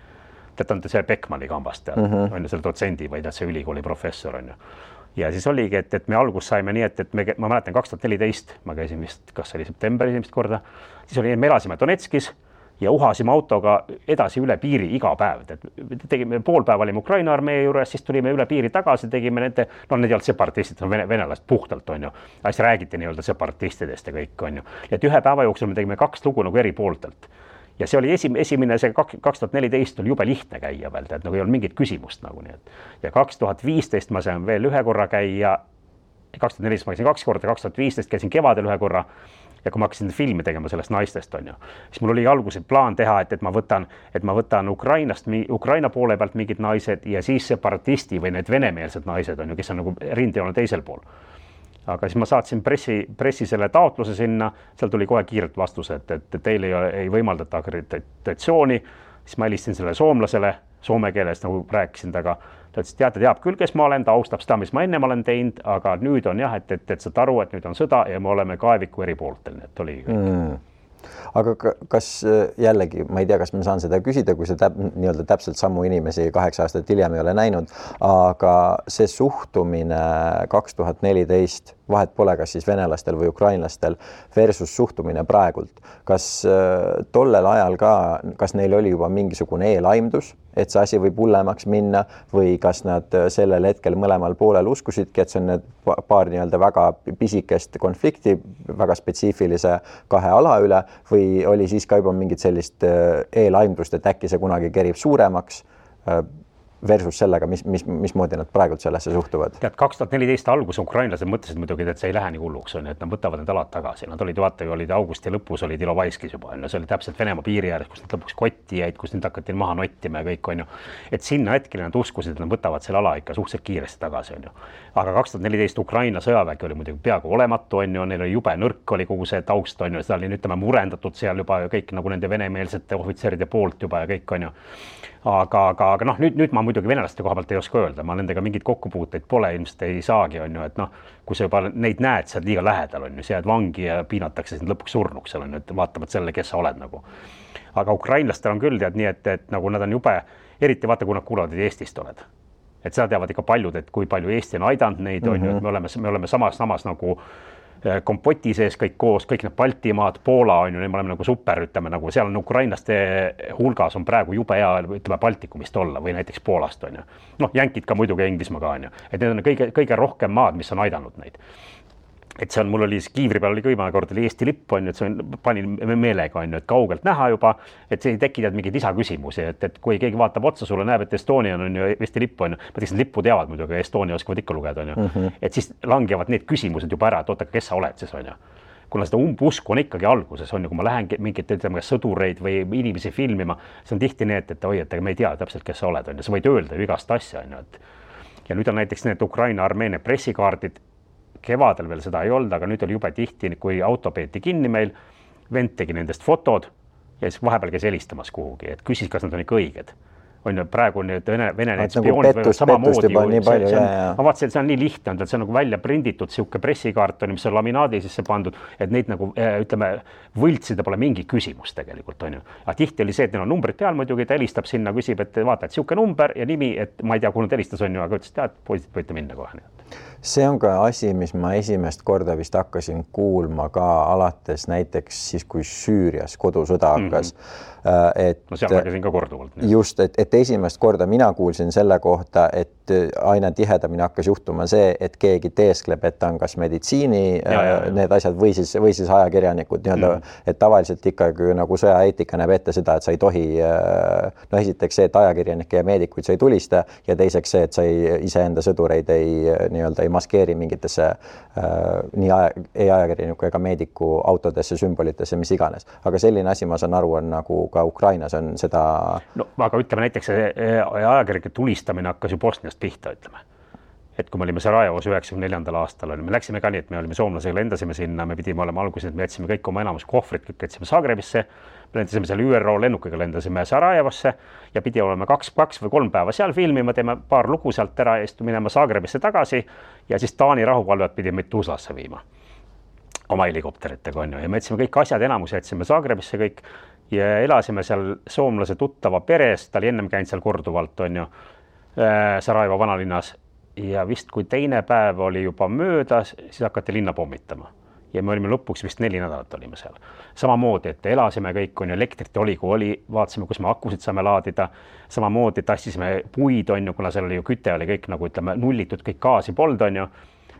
Tead, on see Beckmanni kambast, tead, on ju selle dotsendi või tead see ülikooli professor, on ju. Ja siis oligi, et me algus saime nii, et ma mäletan 2014, ma käisin vist, kas oli september esimest korda, siis oli, me elasime Donetskis ja uhasime autoga edasi üle piiri iga päev. Tegime pool päeva olime Ukraina armee juures, siis tulime üle piiri tagasi, tegime nende, no need ei olnud separatistid, venelast puhtalt on ju. Siis räägiti nii-öelda separatistidest ja kõik on ju. Et ühe päeva jooksul me tegime 2 lugu nagu eri pooltelt. Ja see oli esimene, see 2014 oli jube lihtne käia veel, et nagu ei olnud mingit küsimust nagu nii. Ja 2015 ma sain veel 1 korra käia, 2014 ma käisin 2 korda, 2015 käisin kevadel 1 korra. ja kui ma hakkasin filmi tegema sellest naistest, on ju, siis mul oli alguses plaan teha, et ma võtan Ukraina poole pealt mingid naised ja siis separatisti või need venemeelsed naised, on ju, kes on nagu rindejoone teisel pool. Aga siis ma saatsin pressi selle taotluse sinna, seal tuli kohe kiirelt vastus, et teil ei võimaldata akreditatsiooni, siis ma helistasin selle soomlasele, soome keeles nagu rääkisin taga, ta ütles, tead, teab küll, kes ma olen, ta austab seda, mis ma ennem olen teinud, aga nüüd on jah, et saad aru, et nüüd on sõda ja me oleme kaeviku eri pooltel, nii et oli kõik. Aga kas jällegi, ma ei tea, kas ma saan seda küsida, kui see nii-öelda täpselt samu inimesi 8 aastat hiljem ei ole näinud, aga see suhtumine 2014, vahet pole, kas siis venelastel või ukrainlastel versus suhtumine praegult, kas tollel ajal ka, kas neil oli juba mingisugune eelaimdus, et see asi võib hullemaks minna või kas nad sellel hetkel mõlemal poolel uskusidki, et see on need paar nii-öelda väga pisikest konflikti, väga spetsiifilise 2 ala üle või oli siis ka juba mingit sellist eelaimdust, et äkki see kunagi kerib suuremaks versus sellega, mismoodi nad praegult sellesse suhtuvad? Tead, 2014 algus ukrainlased mõtlesid muidugi, et see ei lähe nii hulluks, on, et nad võtavad need alad tagasi. Nad olid, vaata, olid augusti lõpus, olid Ilovaiskis juba, on, see oli täpselt Venemaa piiri ääres, kus nad lõpuks kotti jäid, kus nüüd hakati maha nottima ja kõik, on ju. Et sinna hetkele nad uskusid, et nad võtavad selle ala ikka suhteliselt kiiresti tagasi, on ju. Aga 2014 Ukraina sõjavägi oli muidugi peaaegu olematu, on ju, neil oli jube nõrk oli kogu see taust, on ju, seda oli, ütleme, murendatud seal juba kõik nagu nende venemeelsete ohvitseride poolt juba ja kõik, on ju. Aga noh, nüüd ma muidugi venelaste koha pealt ei oska öelda, ma nendega mingid kokkupuuteid pole, ilmselt ei saagi, on ju, et noh, kui sa juba neid näed, sa oled liiga lähedal, on ju, sa jääd vangi ja piinatakse sind lõpuks surnuks, on ju, et vaatamad selle, kes sa oled nagu. Aga ukrainlastel on küll tead nii, et nagu nad on jube, eriti vaata, kui nad kuulavad, et Eestist oled. Et seda teavad ikka paljud, et kui palju Eesti on aidanud neid, on ju, et me oleme samas nagu kompoti sees kõik koos, kõik need Baltimaad, Poola on ju, me oleme nagu super, ütleme nagu seal on ukrainlaste hulgas on praegu jube hea, ütleme Baltikumist olla või näiteks Poolast on ju. Noh, jänkid ka muidugi Inglismaa ka on ju, et need on kõige rohkem maad, mis on aidanud neid. Et see on, mul oli kiivri peal oli kõimane kord oli Eesti lipp on ju, et see panin meelega on ju, et kaugelt näha juba, et see ei tekkinud mingeid lisaküsimusi, et kui keegi vaatab otsa sulle, näeb, et Estonia on ju Eesti lipp on ju, ma teeks, lippu teavad muidugi, Estonia oskavad ikka lugeda on ju, et siis langevad need küsimused juba ära, et oota, kes sa oled siis on ju. Kuna seda umbusku on ikkagi alguses on ju, kui ma lähen mingit ütleme, sõdureid või inimesi filmima, see on tihti need, et oi, et me ei tea täpselt, kes sa oled on ju, sa võid öelda ju igast asja on ju, et ja nüüd on näiteks need Ukraina Armeenia pressikaardid, kevadel veel seda ei olnud, aga nüüd oli jube tihti, kui auto peeti kinni meil, vend tegi nendest fotod ja siis vahepeal käis helistamas kuhugi, et küsis, kas nad on ikka õiged. On ju, praegu need Vene need spioonid võivad samamoodi. Ma vaatasin, et see on nii lihtne, et see on nagu välja prinditud sihuke pressikaart, mis on laminaadi sisse pandud, et neid nagu ütleme, võltsida pole mingi küsimus tegelikult, on ju. Aga tihti oli see, et neil on numbrid peal muidugi, ta helistab sinna, küsib, et vaata, et sihuke number ja nimi, et ma ei tea, kuhu nad helistas on ju, aga ütles, tead, poisid võite minna kohe. See on ka asi, mis ma esimest korda vist hakkasin kuulma ka alates näiteks siis, kui Süürias kodusõda hakkas. No seal nägesin ka korduvalt. Just, et esimest korda mina kuulsin selle kohta, et aina tihedamini hakkas juhtuma see, et keegi teeskleb, et on kas meditsiini need asjad või siis ajakirjanikud nii-öelda, et tavaliselt ikkagi nagu sõjaeetika näeb ette seda, et sa ei tohi, no esiteks see, et ajakirjanikke ja meedikuid sa ei tulista ja teiseks see, et sa iseenda sõdureid ei maskeeri mingitesse nii ajakirjaniku ega meediku autodesse, sümbolitesse, mis iganes. Aga selline asi, ma saan aru, on nagu ka Ukrainas on seda... No, aga ütleme näiteks ajakirjanike tulistamine hakkas ju Bosniast pihta, ütleme. Et kui me olime Sarajevos 94. aastal, me läksime ka nii, et me olime soomlasega, lendasime sinna, me pidime olema alguses, et me jätsime kõik oma enamus kohvrid, kõik jätsime Zagrebisse, me lendasime seal ÜRO lennukiga, lendasime Sarajevosse ja pidi olema 2 või 3 päeva seal filmima, teeme paar lugu sealt ära ja minema Zagrebisse tagasi ja siis Taani rahuvalvet pidi meid Tuzlasse viima oma helikopteritega on ju ja me jätsime kõik asjad, enamus jätsime Zagrebisse kõik ja elasime seal soomlase tuttava peres, ta oli ennem käinud seal korduvalt on ju Sarajevo vanalinnas ja vist kui teine päev oli juba möödas, siis hakati linna pommitama ja me olime lõpuks vist 4 nädalat olime seal. Samamoodi, et elasime kõik on ju, elektrit oli, kui oli, vaatasime, kus me akusid saame laadida, samamoodi tassisime puid on ju, kuna seal oli ju küte oli kõik nagu ütleme nullitud, kõik gaasi polnud on ju,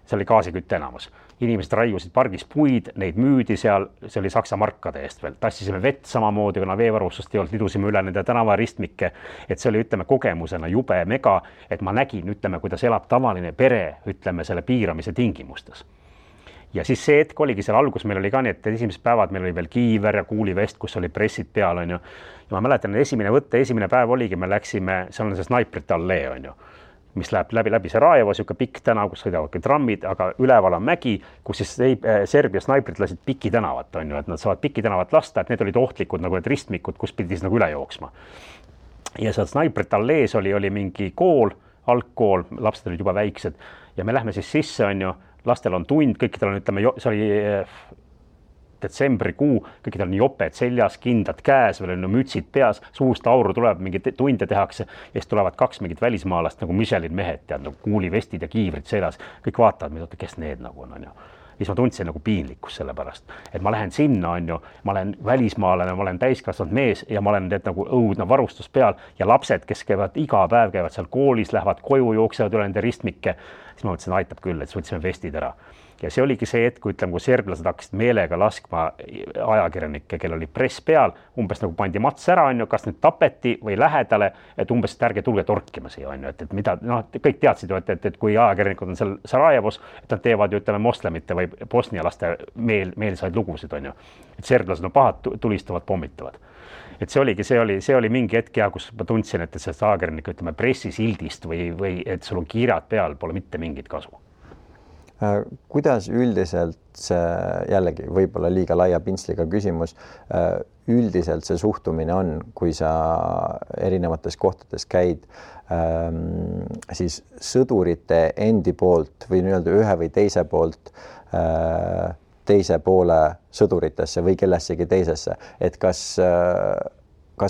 see oli gaasikütte enamus. Inimesed raiusid pargis puid, neid müüdi seal, see oli Saksa markade eest veel. Tassisime vett samamoodi, kuna veevarustust ei olnud, lidusime üle nende tänavaristmikke, et see oli, ütleme, kogemusena jube mega, et ma nägin, ütleme, kuidas elab tavaline pere, ütleme, selle piiramise tingimustes. ja siis see hetk oligi seal algus, meil oli ka nii, et esimesed päevad meil oli veel kiiver ja kuulivest, kus oli pressid peal, on ju. Ja ma mäletan, esimene päev oligi, me läksime, seal on see Snaiprite allee, on ju, mis läheb läbi Sarajevo, siuke pikk tänav, kus sõidavad trammid, aga üleval on mägi, kus siis Serbia snaiprid lasid Piki tänavat, on ju, et nad saavad Piki tänavat lasta, et need olid ohtlikud nagu need ristmikud, kus pidi siis nagu üle jooksma. Ja seal Snaiprite allees oli mingi kool, algkool, lapsed olid juba väiksed ja me lähme siis sisse, on ju, lastel on tund, kõikidel on, ütleme, see oli detsembrikuu, kõikidel on joped seljas, kindad käes, veel on mütsid peas, suust auru tuleb, mingi tunde tehakse ja siis tulevad 2 mingit välismaalast nagu Michelin mehed, tead, nagu kuulivestid ja kiivrid seljas, kõik vaatavad, kes need nagu on, ju. Siis ma tundsin nagu piinlikkus selle pärast, et ma lähen sinna, on ju, ma olen välismaalane, ma olen täiskasvanud mees ja ma olen nagu õudne varustus peal ja lapsed, kes käivad iga päev, käivad seal koolis, lähevad koju, jooksevad üle nende ristmikke, siis ma mõtlesin, aitab küll, et võtsime vestid ära. Ja see oligi see hetk, kui ütleme, kui serblased hakkasid meelega laskma ajakirjanikke, kel oli press peal, umbes nagu pandi mats ära, on ju, kas nüüd tapeti või lähedale, et umbes ärge tulge torkima siia, on ju, et mida, noh, kõik teadsid ju, et kui ajakirjanikud on seal Sarajevos, et nad teevad ju, ütleme, moslemite või bosnialaste meelsaid lugusid, on ju. Et serblased on pahad, tulistavad, pommitavad. Et see oli mingi hetk ja kus ma tundsin, et sellest ajakirjanik, ütleme, pressisildist või et sul on kiirad peal, pole mitte mingit kasu. Kuidas üldiselt see, jällegi võib-olla liiga laia pintsliga küsimus, üldiselt see suhtumine on, kui sa erinevates kohtades käid, siis sõdurite endi poolt või nii-öelda ühe või teise poolt teise poole sõduritesse või kellessegi teisesse, et kas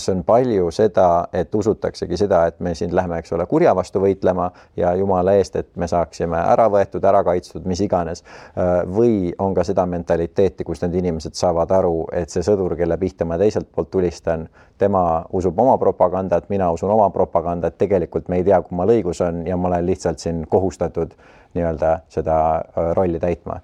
on palju seda, et usutaksegi seda, et me siin lähme, eks ole, kurja vastu võitlema ja jumala eest, et me saaksime ära võetud, ära kaitstud, mis iganes. Või on ka seda mentaliteeti, kus need inimesed saavad aru, et see sõdur, kelle pihta ma teiselt poolt tulistan, tema usub oma propagandat, mina usun oma propagandat, tegelikult me ei tea, kummal õigus on ja ma olen lihtsalt siin kohustatud nii-öelda seda rolli täitma.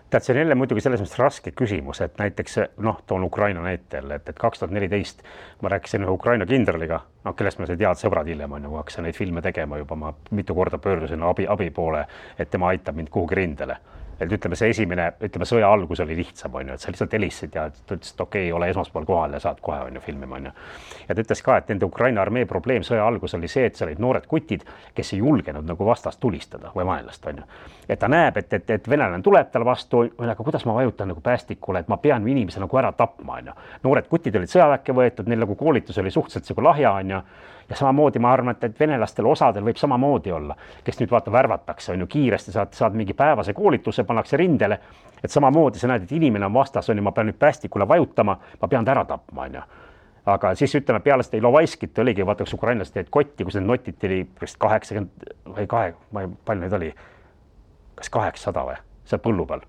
Tead, see on jälle muidugi selles mõttes raske küsimus, et näiteks, noh, toon Ukraina näitel, et 2014 ma rääkisin ühe Ukraina kindraliga, kellest ma sai teada sõbrad hiljem, on ju, kui hakkasin neid filme tegema juba, ma mitu korda pöördusin abi poole, et tema aitab mind kuhugi rindele. Et ütleme, see sõja algus oli lihtsam, on ju, et sa lihtsalt helistasid ja ta ütles, et okei, ole esmaspäeval kohal ja saad kohe, on ju, filmima, on ju. Ja ta ütles ka, et nende Ukraina armee probleem sõja algus oli see, et seal olid noored kutid, kes ei julgenud nagu vastast tulistada või vaenlast, on ju. Et ta näeb, et venelane tuleb tal vastu, aga kuidas ma vajutan nagu päästikule, et ma pean inimese nagu ära tapma, on ju. Noored kutid olid sõjaväkke võetud, neil nagu koolitus oli suhteliselt nagu lahja, on ju. Ja samamoodi ma arvan, et venelastel osadel võib samamoodi olla, kes nüüd vaata värvatakse, on ju, kiiresti saad mingi päevase koolituse, pannakse rindele, et samamoodi sa näed, et inimene on vastas, on ju, ma pean nüüd päästikule vajutama, ma pean ta ära tapma, on ju. Aga siis ütleme, peale seda Ilovaiskit oligi, vaata, kus ukrainlased teed kotti, kus need notid oli 80 või palju neid oli, kas 800 või, seal põllu peal.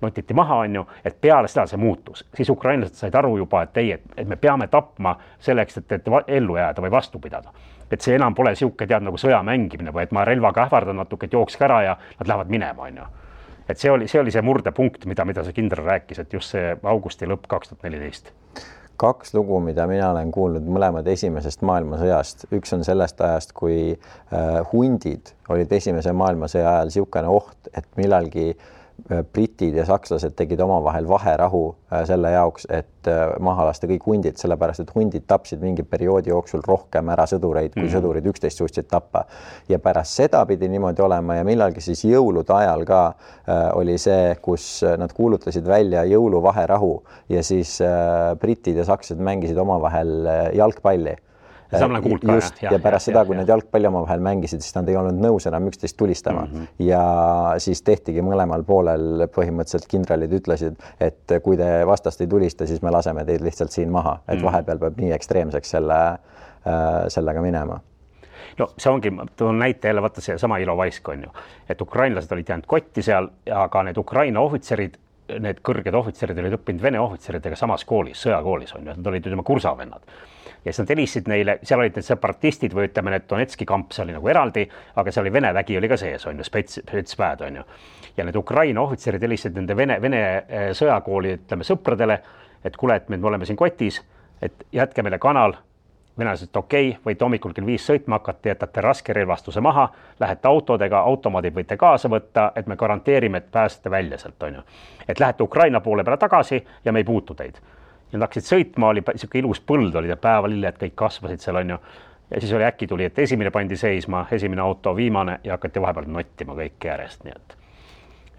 Notiti maha, on ju, et peale seda see muutus. Siis ukrainlased said aru juba, et me peame tapma selleks, et ellu jääda või vastu pidada. Et see enam pole siuke tead nagu sõja mängimine või et ma relvaga ähvardan natuke, et jookske ära ja nad lähevad minema, on ju. Et see oli see murdepunkt, mida see kindral rääkis, et just see augusti lõpp 2014. 2 lugu, mida mina olen kuulnud mõlemad esimesest maailmasõjast. Üks on sellest ajast, kui hundid olid esimese maailmasõja ajal siukene oht, et millalgi britid ja sakslased tegid omavahel vaherahu selle jaoks, et maha lasta kõik hundid, sellepärast et hundid tapsid mingi perioodi jooksul rohkem ära sõdureid, kui sõdurid üksteist suutsid tappa. Ja pärast seda pidi niimoodi olema ja millalgi siis jõulude ajal ka oli see, kus nad kuulutasid välja jõuluvaherahu ja siis britid ja sakslased mängisid omavahel jalgpalli. Just, ja pärast seda, kui nad jalgpalli omavahel mängisid, siis nad ei olnud nõus enam üksteist tulistama. Ja siis tehtigi mõlemal poolel põhimõtteliselt kindralid ütlesid, et kui te vastast ei tulista, siis me laseme teid lihtsalt siin maha, et vahepeal peab nii ekstreemseks sellega minema. No see ongi, toon näite jälle, vaata see sama Ilovaisk on ju, et ukrainlased olid jäänud kotti seal, aga need Ukraina ohvitserid, need kõrged ohvitserid olid õppinud vene ohvitseridega samas koolis, sõjakoolis on ju, nad olid ütleme kursavennad. Ja siis nad helistasid neile, seal olid need separatistid või ütleme, need Donetski kamp, see oli nagu eraldi, aga seal oli Vene vägi oli ka sees, on ju, spetsväed, on ju. Ja need Ukraina ohvitserid helistasid nende Vene sõjakooli, ütleme, sõpradele, et kuule, et me oleme siin kotis, et jätke meile kanal venelased, et okei, võite hommikul kell 5 sõitma hakata, jätate raskerelvastuse maha, lähete autodega, automaadid võite kaasa võtta, et me garanteerime, et pääsete välja sealt, on ju. Et lähete Ukraina poole peale tagasi ja me ei puutu teid. Ja nad hakkasid sõitma, oli siuke ilus põld, oli päevalilled, kõik kasvasid seal, on ju. Ja siis oli äkki tuli, et esimene pandi seisma, esimene auto, viimane ja hakati vahepeal nottima kõik järjest, nii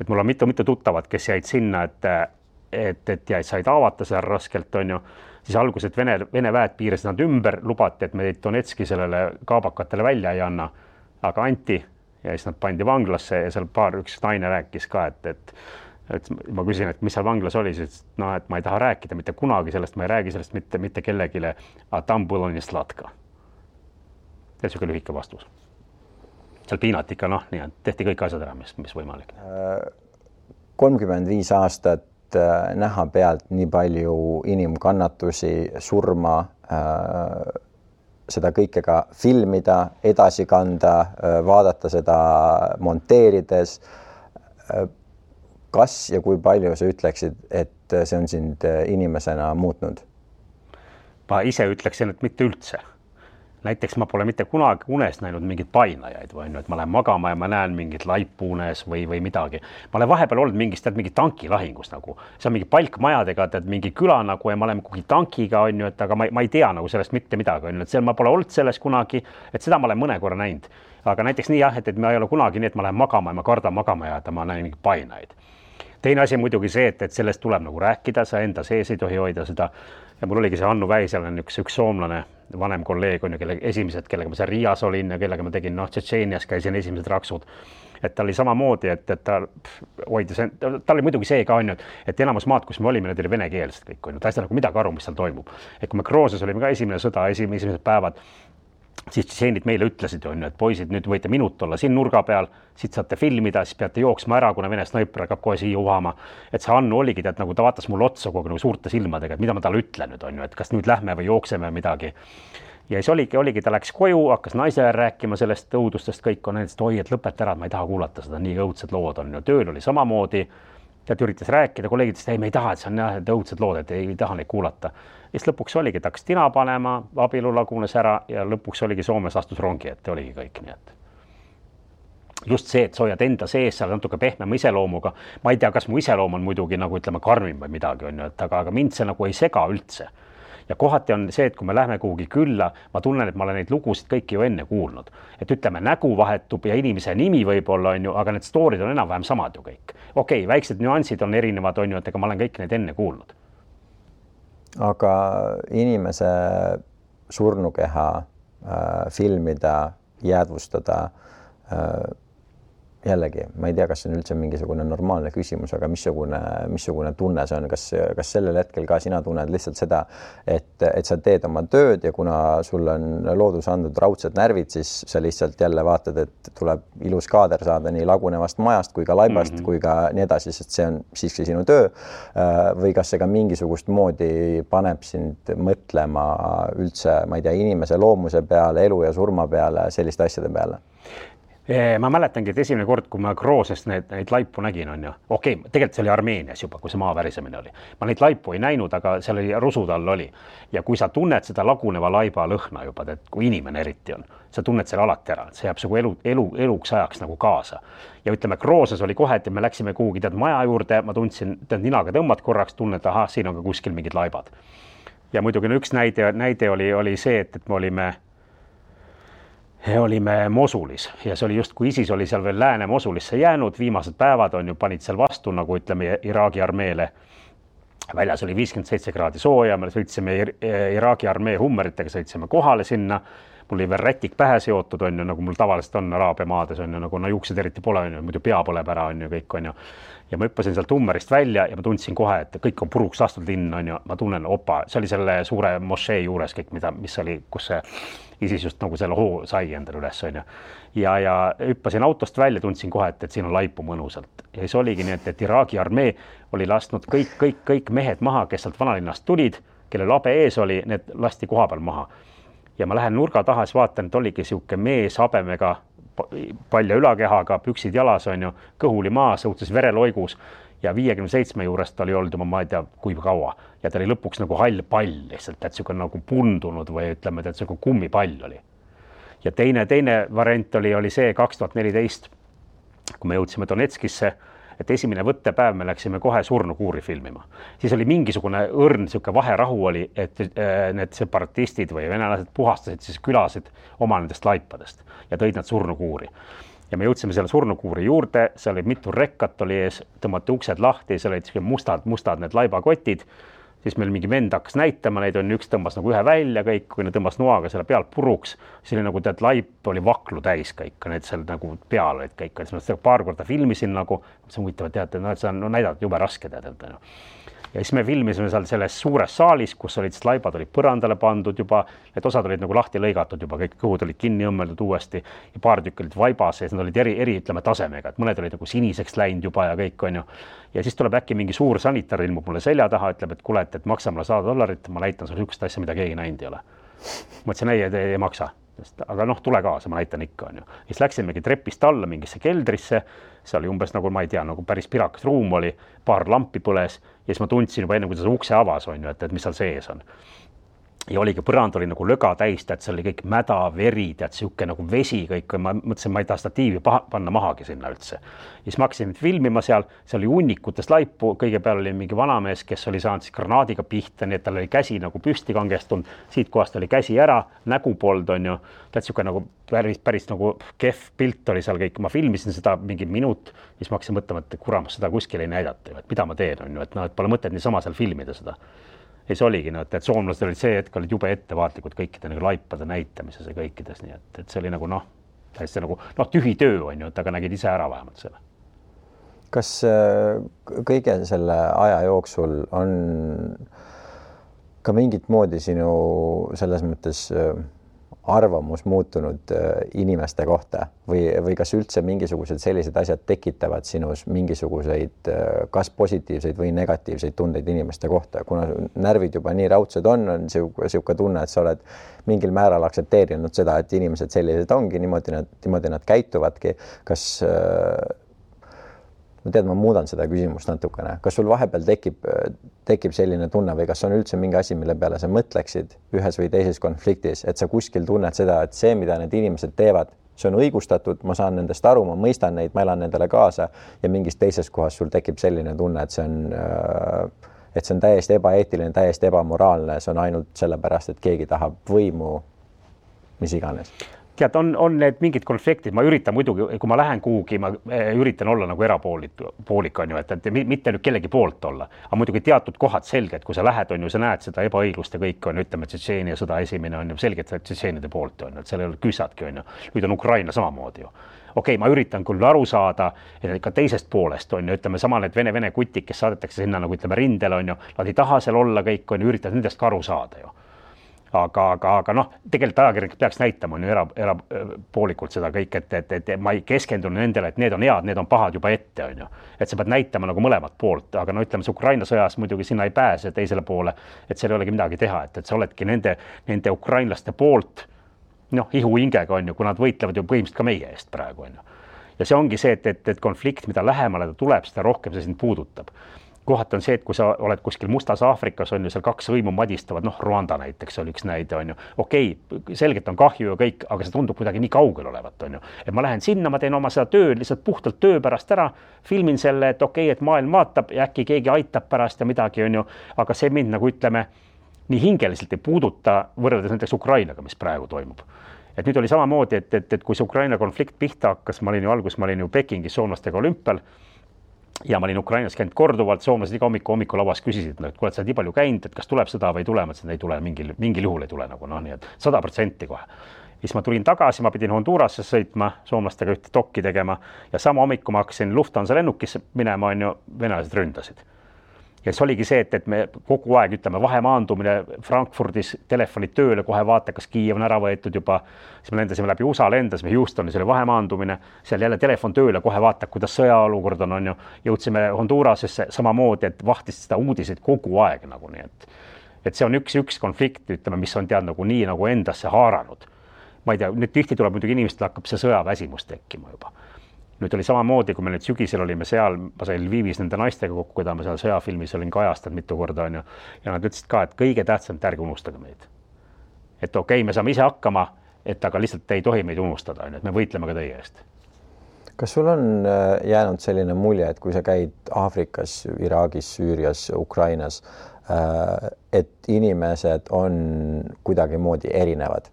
et mul on mitu tuttavat, kes jäid sinna, et jäid said avata seal raskelt, on ju. Siis alguses Vene väed piirasid nad ümber, lubati, et me Donetski sellele kaabakatele välja ei anna, aga anti ja siis nad pandi vanglasse ja seal üks naine rääkis ka, et ma küsin, et mis seal vanglas oli, siis no, et ma ei taha rääkida mitte kunagi sellest, ma ei räägi sellest mitte kellegile, a tam было не sladka. Ja siuke lühike vastus. Seal piinati ikka, noh, nii, tehti kõik asjad ära, mis võimalik. 35 aastat näha pealt nii palju inimkannatusi, surma, seda kõike ka filmida, edasi kanda, vaadata seda monteerides. Kas ja kui palju sa ütleksid, et see on sind inimesena muutnud? Ma ise ütleksin, et mitte üldse. Näiteks ma pole mitte kunagi unes näinud mingid painajaid või et ma lähen magama ja ma näen mingit laipu unes või midagi. Ma olen vahepeal olnud mingi tankilahingus nagu. See on mingi palkmajadega, mingi küla nagu ja ma olen kugi tankiga, on ju, et aga ma ei tea nagu sellest mitte midagi, on ju, et seal ma pole olnud selles kunagi, et seda ma olen mõne korra näinud. Aga näiteks nii jah, et ma ei ole kunagi nii, et ma lähen magama ja ma kardan magama ja ma näen mingi painajaid. Teine asi muidugi see, et sellest tuleb nagu rääkida, sa enda sees ei tohi hoida seda. Ja mul oligi see Hannu Väisel on üks soomlane, vanem kolleeg on ju, kellega ma seal Riias olin ja kellega ma tegin, Tšetšeenias käisin esimesed raksud. Et ta oli samamoodi, et ta hoidis, ta oli muidugi see ka on ju, et enamus maad, kus me olime, need oli venekeelsed kõik on ju, ta ei saa nagu midagi aru, mis seal toimub. Et kui me Krooses olime ka esimene sõda, esimesed päevad, siis tšetšeenid meile ütlesid, on ju, et poisid, nüüd võite minut olla siin nurga peal, siit saate filmida, siis peate jooksma ära, kuna Vene snaiper hakkab kohe siia uhama. Et see Hannu oligi, et nagu ta vaatas mul otsa kogu nagu suurte silmadega, et mida ma talle ütlen nüüd, on ju, et kas nüüd lähme või jookseme midagi. Ja siis oligi, ta läks koju, hakkas naisele rääkima sellest õudustest, kõik on näiteks, oi, et lõpeta ära, et ma ei taha kuulata seda, nii õudsed lood on ju. Tööl oli samamoodi, ta üritas rääkida, kolleegidest, ei, me ei taha, et see on jah, õudsed lood, et ei taha neid kuulata. Ja siis lõpuks oligi, et hakkas tina panema, abielu lagunes ära ja lõpuks oligi Soomes astus rongi, et oligi kõik nii, et just see, et sa hoiad enda sees seal natuke pehmema iseloomuga. Ma ei tea, kas mu iseloom on muidugi nagu ütleme karmim või midagi on ju, et aga mind see nagu ei sega üldse. Ja kohati on see, et kui me lähme kuhugi külla, ma tunnen, et ma olen neid lugusid kõiki ju enne kuulnud. Et ütleme, nägu vahetub ja inimese nimi võib-olla on ju, aga need stoorid on enam-vähem samad ju kõik. Okei, väiksed nüansid on erinevad on ju, et ega ma olen kõik neid enne kuulnud. Aga inimese surnukeha filmida, jäädvustada, jällegi, ma ei tea, kas see on üldse mingisugune normaalne küsimus, aga missugune tunne see on, kas sellel hetkel ka sina tunned lihtsalt seda, et sa teed oma tööd ja kuna sul on loodus andnud raudsed närvid, siis sa lihtsalt jälle vaatad, et tuleb ilus kaader saada nii lagunevast majast kui ka laibast kui ka nii edasi, sest see on siiski sinu töö. Või kas see ka mingisugust moodi paneb sind mõtlema üldse, ma ei tea, inimese loomuse peale, elu ja surma peale, selliste asjade peale? Ma mäletangi, et esimene kord, kui ma Kroosest neid laipu nägin, on ju. Okei, tegelikult see oli Armeenias juba, kui see maavärisemine oli. Ma neid laipu ei näinud, aga seal oli rusud all oli. Ja kui sa tunned seda laguneva laiba lõhna juba, et kui inimene eriti on, sa tunned selle alati ära, see jääb nagu eluks ajaks nagu kaasa. Ja ütleme, Krooses oli kohe, et me läksime kuhugi maja juurde, ma tundsin, ninaga tõmbad korraks, tunned, aha, siin on ka kuskil mingid laibad. Ja muidugi üks näide oli see, et me olime Mosulis ja see oli just, kui ISIS oli seal veel lääne Mosulisse jäänud, viimased päevad on ju, panid seal vastu, nagu ütleme, Iraagi armeele. Väljas oli 57 kraadi sooja, me sõitsime Iraagi armee hummeritega, sõitsime kohale sinna. Mul oli veel rätik pähe seotud, on ju, nagu mul tavaliselt on Araabia maades, on ju, nagu juuksed eriti pole, on ju, muidu pea põleb ära, on ju, kõik on ju. Ja ma hüppasin sealt hummerist välja ja ma tundsin kohe, et kõik on puruks lastud linn, on ju, ma tunnen, opa, see oli selle suure mošee juures kõik, mis oli, kus see ISIS just nagu selle hoo sai endale üles, on ju. Ja hüppasin autost välja, tundsin kohe, et siin on laipu mõnusalt. Ja siis oligi nii, et Iraagi armee oli lasknud kõik mehed maha, kes sealt vanalinnast tulid, kelle labe ees oli, need lasti koha peal maha. Ja ma lähen nurga taha, siis vaatan, et oligi siuke mees habemega, palja ülakehaga, püksid jalas on ju, kõhuli maas, õudses vereloigus ja 57 juurest oli olnud juba, ma ei tea, kui kaua ja ta oli lõpuks nagu hall pall lihtsalt, et siuke nagu pundunud või ütleme, et siuke kummipall oli. Ja teine variant oli see 2014, kui me jõudsime Donetskisse, et esimene võttepäev me läksime kohe surnukuuri filmima. Siis oli mingisugune õrn, siuke vaherahu oli, et need separatistid või venelased puhastasid siis külasid oma nendest laipadest ja tõid nad surnukuuri. Ja me jõudsime selle surnukuuri juurde, seal oli mitu rekkat oli ees, tõmmati uksed lahti, seal olid mustad need laibakotid, siis meil mingi vend hakkas näitama neid, üks tõmbas nagu ühe välja kõik, kui need tõmbas noaga selle pealt puruks, siis oli nagu tead, laip oli vaklu täis kõik, need seal nagu peal olid kõik, siis ma seda paar korda filmisin nagu, see on huvitav, teate, et see on näidata jube raske teada. Ja siis me filmisime seal selles suures saalis, kus olid siis laibad olid põrandale pandud juba, need osad olid nagu lahti lõigatud juba, kõik kõhud olid kinni õmmeldud uuesti ja paar tükk olid vaibas ja need olid eri ütleme tasemega, et mõned olid nagu siniseks läinud juba ja kõik on ju. Ja siis tuleb äkki mingi suur sanitar ilmub mulle selja taha, ütleb, et kuule, et maksa mulle $100, ma näitan sulle sihukest asja, mida keegi näinud ei ole. Mõtlesin, ei maksa. Aga noh, tule kaasa, ma näitan ikka on ju. Siis läksimegi trepist alla mingisse keldrisse, see oli umbes nagu, ma ei tea, nagu päris pirakas ruum oli, paar lampi põles ja siis ma tundsin juba enne, kui ta ukse avas on ju, et mis seal sees on. Ja oligi, põrand oli nagu löga täis, et see oli kõik mäda, veri, tead, siuke nagu vesi kõik, ma mõtlesin, ma ei taha statiivi panna mahagi sinna üldse. Ja siis ma hakkasin filmima seal, see oli hunnikutest laipu, kõige peal oli mingi vanamees, kes oli saanud siis granaadiga pihta, nii et tal oli käsi nagu püsti kangestunud, siit kohast oli käsi ära, nägu pold on ju, tead siuke nagu päris nagu kehv pilt oli seal kõik, ma filmisin seda mingi minut, siis ma hakkasin mõtlema, et kuramas seda kuskil ei näidata, et mida ma teen on ju, et pole mõtet niisama seal filmida seda. Ja see oligi, et soomlased olid see hetk olid jube ettevaatlikud kõikide nagu laipade näitamises ja kõikides, nii et see oli nagu täiesti nagu tühi töö on ju, et aga nägid ise ära vähemalt selle. Kas kõige selle aja jooksul on ka mingit moodi sinu selles mõttes arvamus muutunud inimeste kohta või kas üldse mingisugused sellised asjad tekitavad sinus mingisuguseid kas positiivseid või negatiivseid tundeid inimeste kohta, kuna närvid juba nii raudsed on siuke tunne, et sa oled mingil määral aktsepteerinud seda, et inimesed sellised ongi, niimoodi nad käituvadki. Kas ma muudan seda küsimust natukene. Kas sul vahepeal tekib selline tunne või kas on üldse mingi asi, mille peale sa mõtleksid ühes või teises konfliktis, et sa kuskil tunned seda, et see, mida need inimesed teevad, see on õigustatud, ma saan nendest aru, ma mõistan neid, ma elan nendele kaasa ja mingis teises kohas sul tekib selline tunne, et see on täiesti ebaeetiline, täiesti ebamoraalne, see on ainult sellepärast, et keegi tahab võimu, mis iganes. Tead, on need mingid konfliktid, ma üritan muidugi, kui ma lähen kuhugi, ma üritan olla nagu erapoolik on ju, et mitte nüüd kellegi poolt olla, aga muidugi teatud kohad selged, kui sa lähed on ju, sa näed seda ebaõiglust ja kõik on, ütleme, Tšetšeenia sõda esimene on ju selgelt Tšetšeenide poolt on ju, et seal ei ole küsadki on ju, nüüd on Ukraina samamoodi ju. Okei, ma üritan küll aru saada ka teisest poolest on ju, ütleme sama need vene kutid, kes saadetakse sinna nagu ütleme rindele on ju, nad ei taha seal olla kõik on ju, üritad nendest ka aru saada ju. Aga tegelikult ajakirjanik peaks näitama on ju erapoolikult seda kõik, et ma ei keskendunud nendele, et need on head, need on pahad juba ette on ju. Et sa pead näitama nagu mõlemat poolt, aga ütleme see Ukraina sõjas muidugi sinna ei pääse teisele poole, et seal ei olegi midagi teha, et sa oledki nende ukrainlaste poolt ihu hingega on ju, kui nad võitlevad ju põhimõtteliselt ka meie eest praegu on ju. Ja see ongi see, et konflikt, mida lähemale ta tuleb, seda rohkem see sind puudutab. Kohati on see, et kui sa oled kuskil Mustas Aafrikas on ju seal kaks võimu madistavad, Rwanda näiteks oli üks näide on ju. Okei, selgelt on kahju ja kõik, aga see tundub kuidagi nii kaugel olevat on ju. Et ma lähen sinna, ma teen oma seda tööd lihtsalt puhtalt töö pärast ära, filmin selle, et okei, et maailm vaatab ja äkki keegi aitab pärast ja midagi on ju, aga see mind nagu ütleme, nii hingeliselt ei puuduta võrreldes näiteks Ukrainaga, mis praegu toimub. Et nüüd oli samamoodi, et kui see Ukraina konflikt pihta hakkas, ma olin ju Pekingis soomlastega olümpial ja ma olin Ukrainas käinud korduvalt, soomlased iga hommikulauas küsisid, et kui oled sa nii palju käinud, et kas tuleb sõda või ei tule, et ei tule, mingil juhul ei tule nagu nii, et 100% kohe. Siis ma tulin tagasi, ma pidin Honduras'e sõitma, soomlastega ühte dokki tegema ja sama hommiku ma hakkasin Lufthansa lennukisse minema, on ju, venelased ründasid. Ja see oligi see, et me kogu aeg ütleme vahemaandumine Frankfurdis, telefonid tööle, kohe vaata, kas Kiiev on ära võetud juba, siis me lendasime läbi USA, lendasime Houstonis, oli vahemaandumine, seal jälle telefon tööle, kohe vaata, kuidas sõjaolukord on ju, jõudsime Hondurasesse samamoodi, et vahtisid seda uudiseid kogu aeg nagu nii, et see on üks konflikt, ütleme, mis on tead nagu nii nagu endasse haaranud. Ma ei tea, nüüd tihti tuleb muidugi inimestel hakkab see sõjaväsimus tekkima juba. nüüd oli samamoodi, kui me nüüd sügisel olime seal, ma sain Lvivis nende naistega kokku, keda ma seal sõjafilmis olin kajastanud mitu korda, on ju, ja nad ütlesid ka, et kõige tähtsam, et ärge unustage meid. Et okei, me saame ise hakkama, et aga lihtsalt ei tohi meid unustada, on ju, et me võitleme ka teie eest. Kas sul on jäänud selline mulje, et kui sa käid Aafrikas, Iraagis, Süürias, Ukrainas, et inimesed on kuidagimoodi erinevad,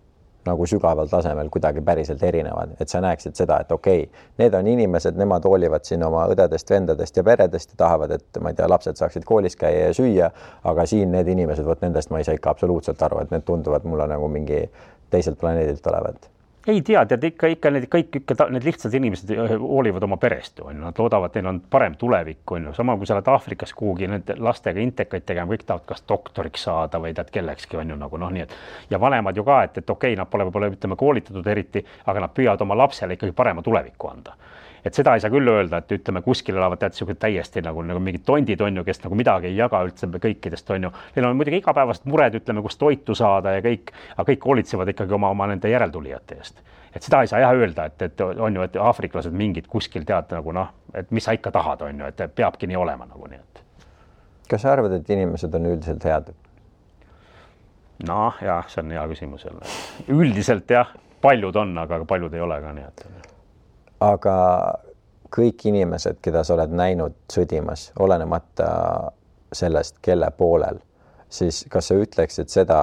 nagu sügaval tasemel kuidagi päriselt erinevad, et sa näeksid seda, et okei, need on inimesed, nemad hoolivad siin oma õdedest, vendadest ja peredest ja tahavad, et ma ei tea, lapsed saaksid koolis käia ja süüa, aga siin need inimesed, võt nendest ma ei saa ikka absoluutselt aru, et need tunduvad mulle nagu mingi teiselt planeedilt olevat. Ei tea, tead ikka need lihtsad inimesed hoolivad oma perest, on ju, nad loodavad, neil on parem tulevik, on ju, sama kui sa oled Aafrikas kuhugi need lastega intekaid tegema, kõik tahavad kas doktoriks saada või tead kellekski, on ju nagu nii, et ja vanemad ju ka, et okei, nad pole võib-olla ütleme koolitatud eriti, aga nad püüavad oma lapsele ikkagi parema tuleviku anda. Et seda ei saa küll öelda, et ütleme kuskil elavad tead täiesti nagu mingid tondid on ju, kes nagu midagi ei jaga üldse kõikidest on ju. Neil on muidugi igapäevased mured, ütleme, kus toitu saada ja kõik, aga kõik hoolitsevad ikkagi oma nende järeltulijate eest. Et seda ei saa jah öelda, et on ju, et aafriklased mingid kuskil tead nagu et mis sa ikka tahad on ju, et peabki nii olema nagu nii, et. Kas sa arvad, et inimesed on üldiselt head? No jah, see on hea küsimus jälle. Üldiselt jah, paljud on, aga paljud ei ole ka nii, et. Aga kõik inimesed, keda sa oled näinud sõdimas, olenemata sellest, kelle poolel, siis kas sa ütleksid seda,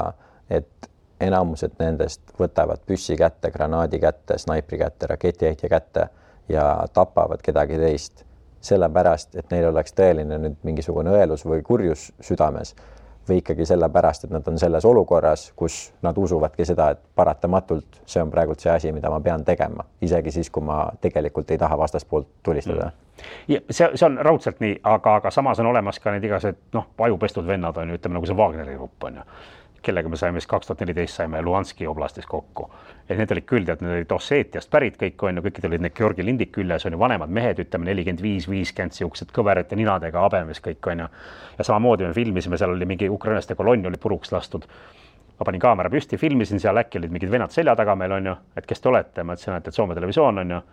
et enamused nendest võtavad püssi kätte, granaadi kätte, snaipri kätte, raketiheitja kätte ja tapavad kedagi teist sellepärast, et neil oleks tõeline nüüd mingisugune õelus või kurjus südames või ikkagi sellepärast, et nad on selles olukorras, kus nad usuvadki seda, et paratamatult see on praegult see asi, mida ma pean tegema, isegi siis, kui ma tegelikult ei taha vastaspoolt tulistada. Ja see on raudselt nii, aga samas on olemas ka need igased ajupestud vennad on ju, ütleme nagu see Wagneri grupp on ju, kellega me saime 2014 saime Luhanski oblastis kokku. Et need olid küll, need olid Osseetiast pärit kõik on ju, kõikid olid need Georgi lindik küljes on ju vanemad mehed, ütleme 45-50 siuksed kõverate ninadega abemes kõik on ju. Ja samamoodi me filmisime, seal oli mingi ukrainaste kolonn oli puruks lastud. Ma panin kaamera püsti, filmisin seal, äkki olid mingid vennad selja taga meil on ju, et kes te olete, ma ütlesin, et Soome televisioon on ju.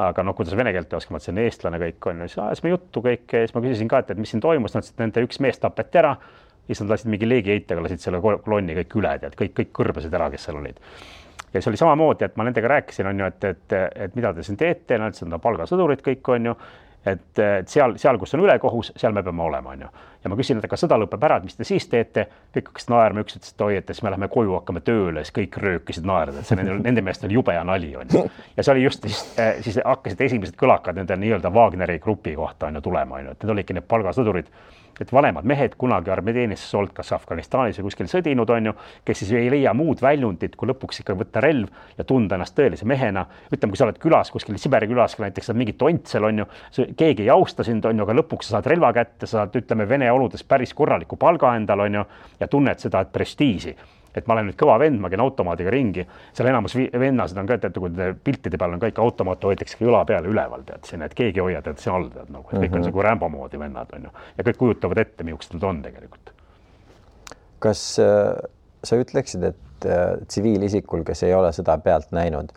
Aga kuidas vene keelt ei oska, ma ütlesin eestlane kõik on ju, siis me juttu kõik, siis ma küsisin ka, et mis siin toimus, nad ütlesid, nende üks mees tapeti ära. Siis nad lasid mingi leegiheitega, lasid selle kolonni kõik üle, et kõik kõrbasid ära, kes seal olid. Ja see oli samamoodi, et ma nendega rääkisin, on ju, et mida te siin teete, nad ütlesid, palgasõdurid kõik on ju, et seal, kus on ülekohus, seal me peame olema, on ju. Ja ma küsin, et kas sõda lõpeb ära, et mis te siis teete? Kõik hakkasid naerma, üks ütles, et oi, et siis me läheme koju, hakkame tööle, siis kõik röökisid naerda, et see nende meest oli jube ja nali, on ju. Ja see oli just siis hakkasid esimesed kõlakad nende nii-öelda Wagneri grupi kohta on ju tulema, on ju, et need olidki need palgasõdurid. Et vanemad mehed kunagi armeeteenistus olnud kas Afganistanis või kuskil sõdinud on ju, kes siis ei leia muud väljundit, kui lõpuks ikka võtta relv ja tunda ennast tõelise mehena. Ütleme, kui sa oled külas, kuskil Siberi külas, näiteks saad mingit tontsel on ju, keegi ei austa sind on ju, aga lõpuks sa saad relva kätte, sa saad, ütleme, Vene oludes päris korraliku palga endal on ju, ja tunned seda prestiisi. Et ma olen nüüd kõva vend, ma käin automaadiga ringi, seal enamus vennasid on ka, et kui piltide peal on kõik automaat hoitakse üla peale üleval, tead siin, et keegi hoiad, et see all tead nagu, et kõik on see kui Rambo moodi vennad on ju, ja kõik kujutavad ette, millised nad on tegelikult. Kas sa ütleksid, et tsiviilisikul, kes ei ole seda pealt näinud,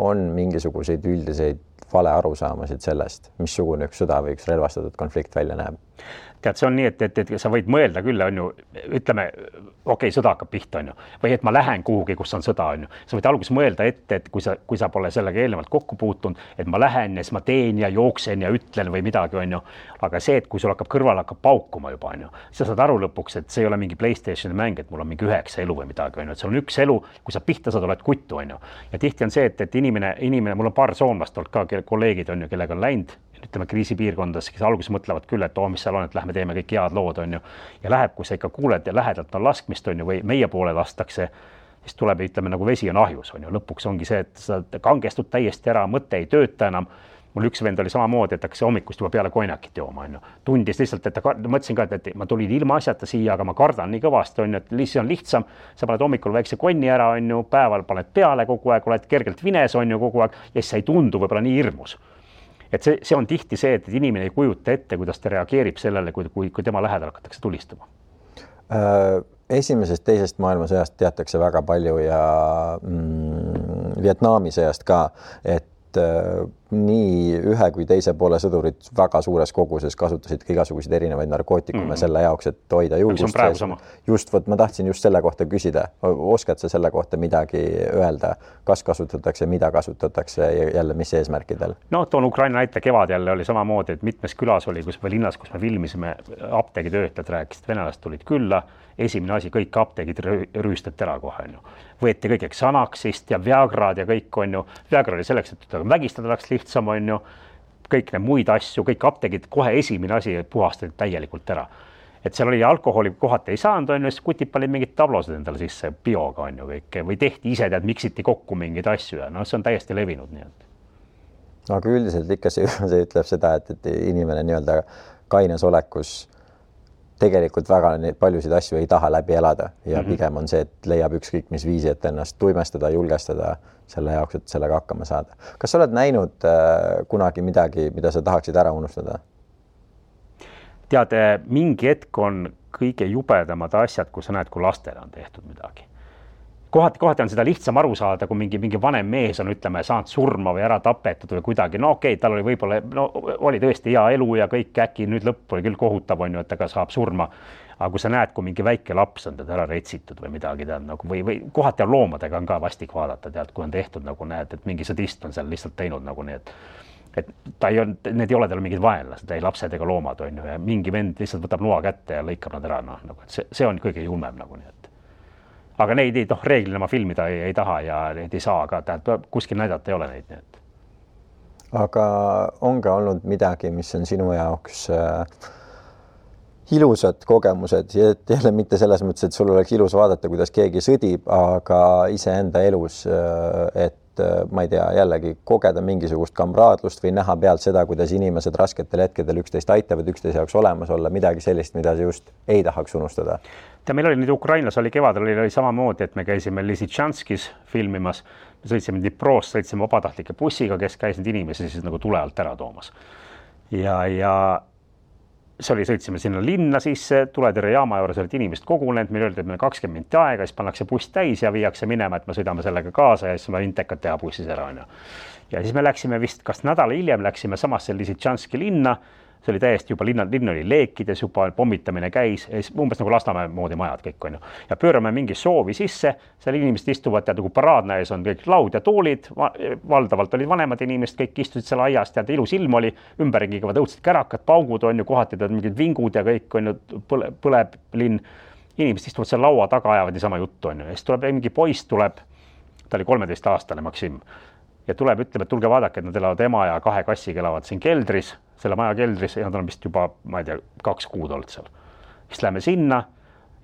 on mingisuguseid üldiseid vale arusaamasid sellest, missugune üks sõda või üks relvastatud konflikt välja näeb? Tead, see on nii, et sa võid mõelda küll, on ju, ütleme, okei, sõda hakkab pihta, on ju, või et ma lähen kuhugi, kus on sõda, on ju. Sa võid alguses mõelda ette, et kui sa pole sellega eelnevalt kokku puutunud, et ma lähen ja siis ma teen ja jooksen ja ütlen või midagi, on ju. Aga see, et kui sul hakkab kõrval hakkab paukuma juba, on ju, sa saad aru lõpuks, et see ei ole mingi PlayStationi mäng, et mul on mingi 9 elu või midagi, on ju, et see on üks elu, kui sa pihta saad, oled kuttu, on ju. Ja tihti on see, et inimene, mul on paar soomlast olnud ka, kolleegid on ju, kellega on läinud, ütleme kriisipiirkondades, kes alguses mõtlevad küll, et mis seal on, et lähme teeme kõik head lood, on ju. Ja läheb, kui sa ikka kuuled ja lähedalt on laskmist, on ju, või meie poole lastakse, siis tuleb, ütleme, nagu vesi on ahjus, on ju. Lõpuks ongi see, et sa kangestud täiesti ära, mõte ei tööta enam. Mul üks vend oli samamoodi, et hakkas hommikust juba peale konjakit jooma, on ju. Tundis lihtsalt, et mõtlesin ka, et ma tulin ilma asjata siia, aga ma kardan nii kõvasti, on ju, et lihtsalt on lihtsam. Sa paned hommikul väikse konni ära, on ju, päeval paned peale kogu aeg, oled kergelt vines, on ju, kogu aeg, ja siis sa ei tundu võib-olla nii hirmus. Et see on tihti see, et inimene ei kujuta ette, kuidas ta reageerib sellele, kui tema lähedal hakatakse tulistama. Esimesest, teisest maailmasõjast teatakse väga palju ja Vietnami sõjast ka, et nii ühe kui teise poole sõdurid väga suures koguses kasutasid ka igasuguseid erinevaid narkootikume selle jaoks, et hoida julgust sees. Just, ma tahtsin just selle kohta küsida. Oskad sa selle kohta midagi öelda? Kas kasutatakse, mida kasutatakse ja jälle mis eesmärkidel? No, toon Ukraina näite, kevad jälle oli samamoodi, et mitmes külas oli, või linnas, kus me filmisime, apteegitöötajad rääkisid, venelast tulid külla, esimene asi, kõik apteegid rüüstati ära kohe, on ju. Võeti kõik Xanaxist ja Viagrad ja kõik, on ju. Viagra oli selleks, et vägistada läks lihtsam, on ju. Kõik need muid asju, kõik apteegid kohe esimene asi puhastati täielikult ära. Et seal oli alkoholi kohati ei saanud, on ju, siis kutid panid mingid tablosed endale sisse bioga, on ju kõik. Või tehti ise, miksiti kokku mingeid asju ja no see on täiesti levinud. Nii et. Aga üldiselt ikka see ütleb seda, et inimene nii-öelda kaines olekus tegelikult väga paljusid asju ei taha läbi elada ja pigem on see, et leiab ükskõik mis viisi, et ennast tuimestada, julgestada selle jaoks, et sellega hakkama saada. Kas sa oled näinud kunagi midagi, mida sa tahaksid ära unustada? Tead, mingi hetk on kõige jubedamad asjad, kui sa näed, kui lastele on tehtud midagi. Kohati on seda lihtsam aru saada, kui mingi vanem mees on, ütleme, saanud surma või ära tapetud või kuidagi. No okei, tal oli võib-olla, oli tõesti hea elu ja kõik äkki nüüd lõpp oli küll kohutav, on ju, et ta saab surma. Aga kui sa näed, kui mingi väike laps on teda ära retsitud või midagi, tead, nagu, või kohati on loomadega on ka vastik vaadata, tead, kui on tehtud, nagu näed, et mingi sadist on seal lihtsalt teinud nagu nii, et ta ei ole, need ei ole tal mingid vaenlased, ei lapsed ega loomad, on ju, ja mingi vend lihtsalt võtab noa kätte ja lõikab nad ära, noh, nagu, see on kõige julmem nagu nii, et. Aga neid reeglina ma filmida ei taha ja neid ei saa, aga kuskil näidata ei ole neid. Nii. Aga on ka olnud midagi, mis on sinu jaoks ilusad kogemused ja jälle mitte selles mõttes, et sul oleks ilus vaadata, kuidas keegi sõdib, aga iseenda elus, et ma ei tea, jällegi kogeda mingisugust kamraadlust või näha pealt seda, kuidas inimesed rasketel hetkedel üksteist aitavad, üksteise jaoks olemas olla, midagi sellist, mida sa just ei tahaks unustada. Meil oli nüüd Ukrainas, oli kevadel, oli samamoodi, et me käisime Lisitšanskis filmimas, me sõitsime Dniprost, sõitsime vabatahtlike bussiga, kes käis need inimesi siis nagu tule alt ära toomas. Ja see oli, sõitsime sinna linna sisse, tuletõrje jaama juures olid inimesed kogunenud, meil öeldi, et meil 20 minutit aega, siis pannakse buss täis ja viiakse minema, et me sõidame sellega kaasa ja siis me intekad teha bussis ära. Ja siis me läksime vist, kas nädala hiljem läksime samasse Lisitšanski linna, see oli täiesti juba linn oli leekides, juba pommitamine käis, umbes nagu Lasnamäe moodi majad kõik on ju. Ja pöörame mingi soovi sisse, seal inimesed istuvad, tead, nagu paraadna ees on kõik laud ja toolid, valdavalt olid vanemad inimesed, kõik istusid seal aias, tead, ilus ilm oli, ümberringi kõvad õudsed kärakad, paugud on ju, kohati tead mingid vingud ja kõik on ju, põleb linn. Inimesed istuvad seal laua taga, ajavad niisama juttu on ju. Ja siis tuleb mingi poiss, tuleb, ta oli 13-aastane Maksim. Ja tuleb, ütleb, et tulge vaadake, et nad elavad ema ja 2 kassiga elavad siin keldris, selle maja keldris ja nad on vist juba, ma ei tea, 2 kuud olnud seal. Siis läheme sinna,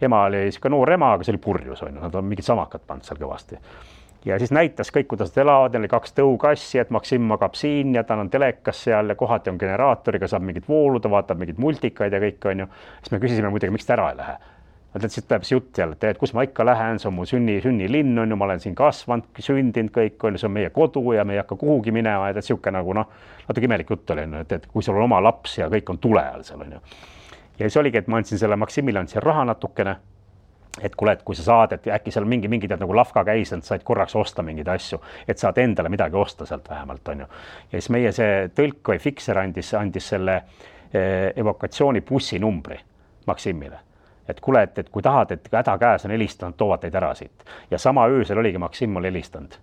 ema oli ka noor ema, aga see oli purjus, on ju, nad on mingid samakad pannud seal kõvasti. Ja siis näitas kõik, kuidas nad elavad, neil oli 2 tõukassi, et Maksim magab siin ja ta on telekas seal ja kohati on generaatoriga, saab mingid vooluda, vaatab mingid multikaid ja kõik, on ju. Siis me küsisime muidugi, miks ta ära ei lähe. Mõtled, siit tuleb see jutt jälle, et kus ma ikka lähen, see on mu sünnilinn, on ju, ma olen siin kasvanud, sündinud kõik, on ju, see on meie kodu ja me ei hakka kuhugi minema, et siuke nagu natuke imelik jutt oli, et kui sul on oma laps ja kõik on tule all seal, on ju. Ja siis oligi, et ma andsin selle Maksimile, andsin raha natukene, et kuule, et kui sa saad, et äkki seal mingi tead nagu lafka käis, et said korraks osta mingeid asju, et saad endale midagi osta sealt vähemalt, on ju. Ja siis meie see tõlk või fikser andis selle evokatsiooni bussi numbri Maksimile. Et kuule, et kui tahad, et häda käes on helistanud, toovad teid ära siit. Ja sama öösel oligi Maksim mul helistanud.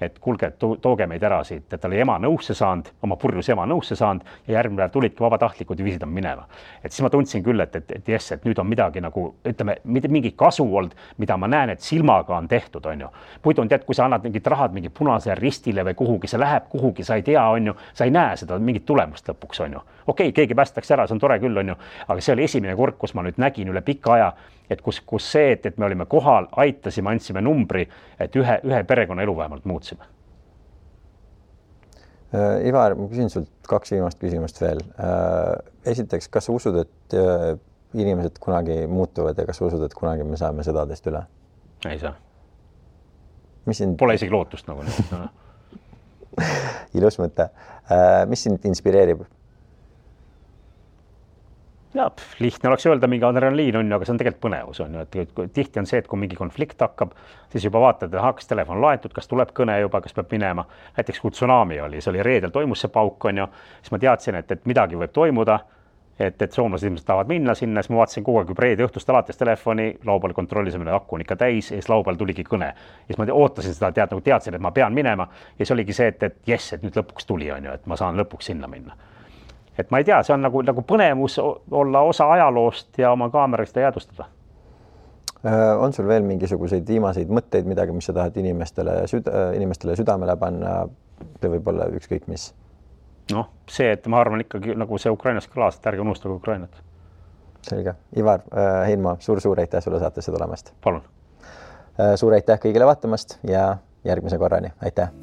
Et kuulge, tooge meid ära siit, et ta oli ema nõusse saanud, oma purjus ema nõusse saanud ja järgmine päev tulidki vabatahtlikud ja viisid on minema. Et siis ma tundsin küll, et jess, et nüüd on midagi nagu, ütleme, mingi kasu olnud, mida ma näen, et silmaga on tehtud, on ju. Muidu on tead, kui sa annad mingid rahad mingi punase ristile või kuhugi, see läheb kuhugi, sa ei tea, on ju, sa ei näe seda mingit tulemust lõpuks, on ju. Okei, keegi päästaks ära, see on tore küll, on ju, aga see oli esimene kord, kus ma nüüd nägin üle pika aja, et kus see, et me olime kohal, aitasime, andsime numbri, et ühe perekonna elu vähemalt muutsime. Ivar, ma küsin sult 2 viimast küsimust veel. Esiteks, kas sa usud, et inimesed kunagi muutuvad ja kas sa usud, et kunagi me saame sõdadest üle? Ei saa. Pole isegi lootust nagu nüüd. No. Ilus mõte. Mis sind inspireerib? Ja, lihtne oleks öelda, mingi adrenaliin on ju, aga see on tegelikult põnevus on ju, et tihti on see, et kui mingi konflikt hakkab, siis juba vaatad, kas telefon laetud, kas tuleb kõne juba, kas peab minema. Näiteks kui tsunami oli, see oli reedel toimus see pauk on ju, siis ma teadsin, et midagi võib toimuda, et soomlased ilmselt tahavad minna sinna, siis ma vaatasin kogu aeg juba reede õhtust alates telefoni, laupäeval kontrollisime, akku on ikka täis ja siis laupäeval tuligi kõne. Ja siis ma ootasin seda, teadsin, et ma pean minema ja siis oligi see, et jess, et nüüd lõpuks tuli on ju, et ma saan lõpuks sinna minna. Et ma ei tea, see on nagu põnevus olla osa ajaloost ja oma kaameraga seda jäädustada. On sul veel mingisuguseid viimaseid mõtteid, midagi, mis sa tahad inimestele südamele panna või võib-olla ükskõik mis? Noh, see, et ma arvan ikkagi nagu see Ukrainas kõlas, et ärge unustage Ukrainat. Selge. Ivar Heinma, suur aitäh sulle saatesse tulemast. Palun. Suur aitäh kõigile vaatamast ja järgmise korrani. Aitäh.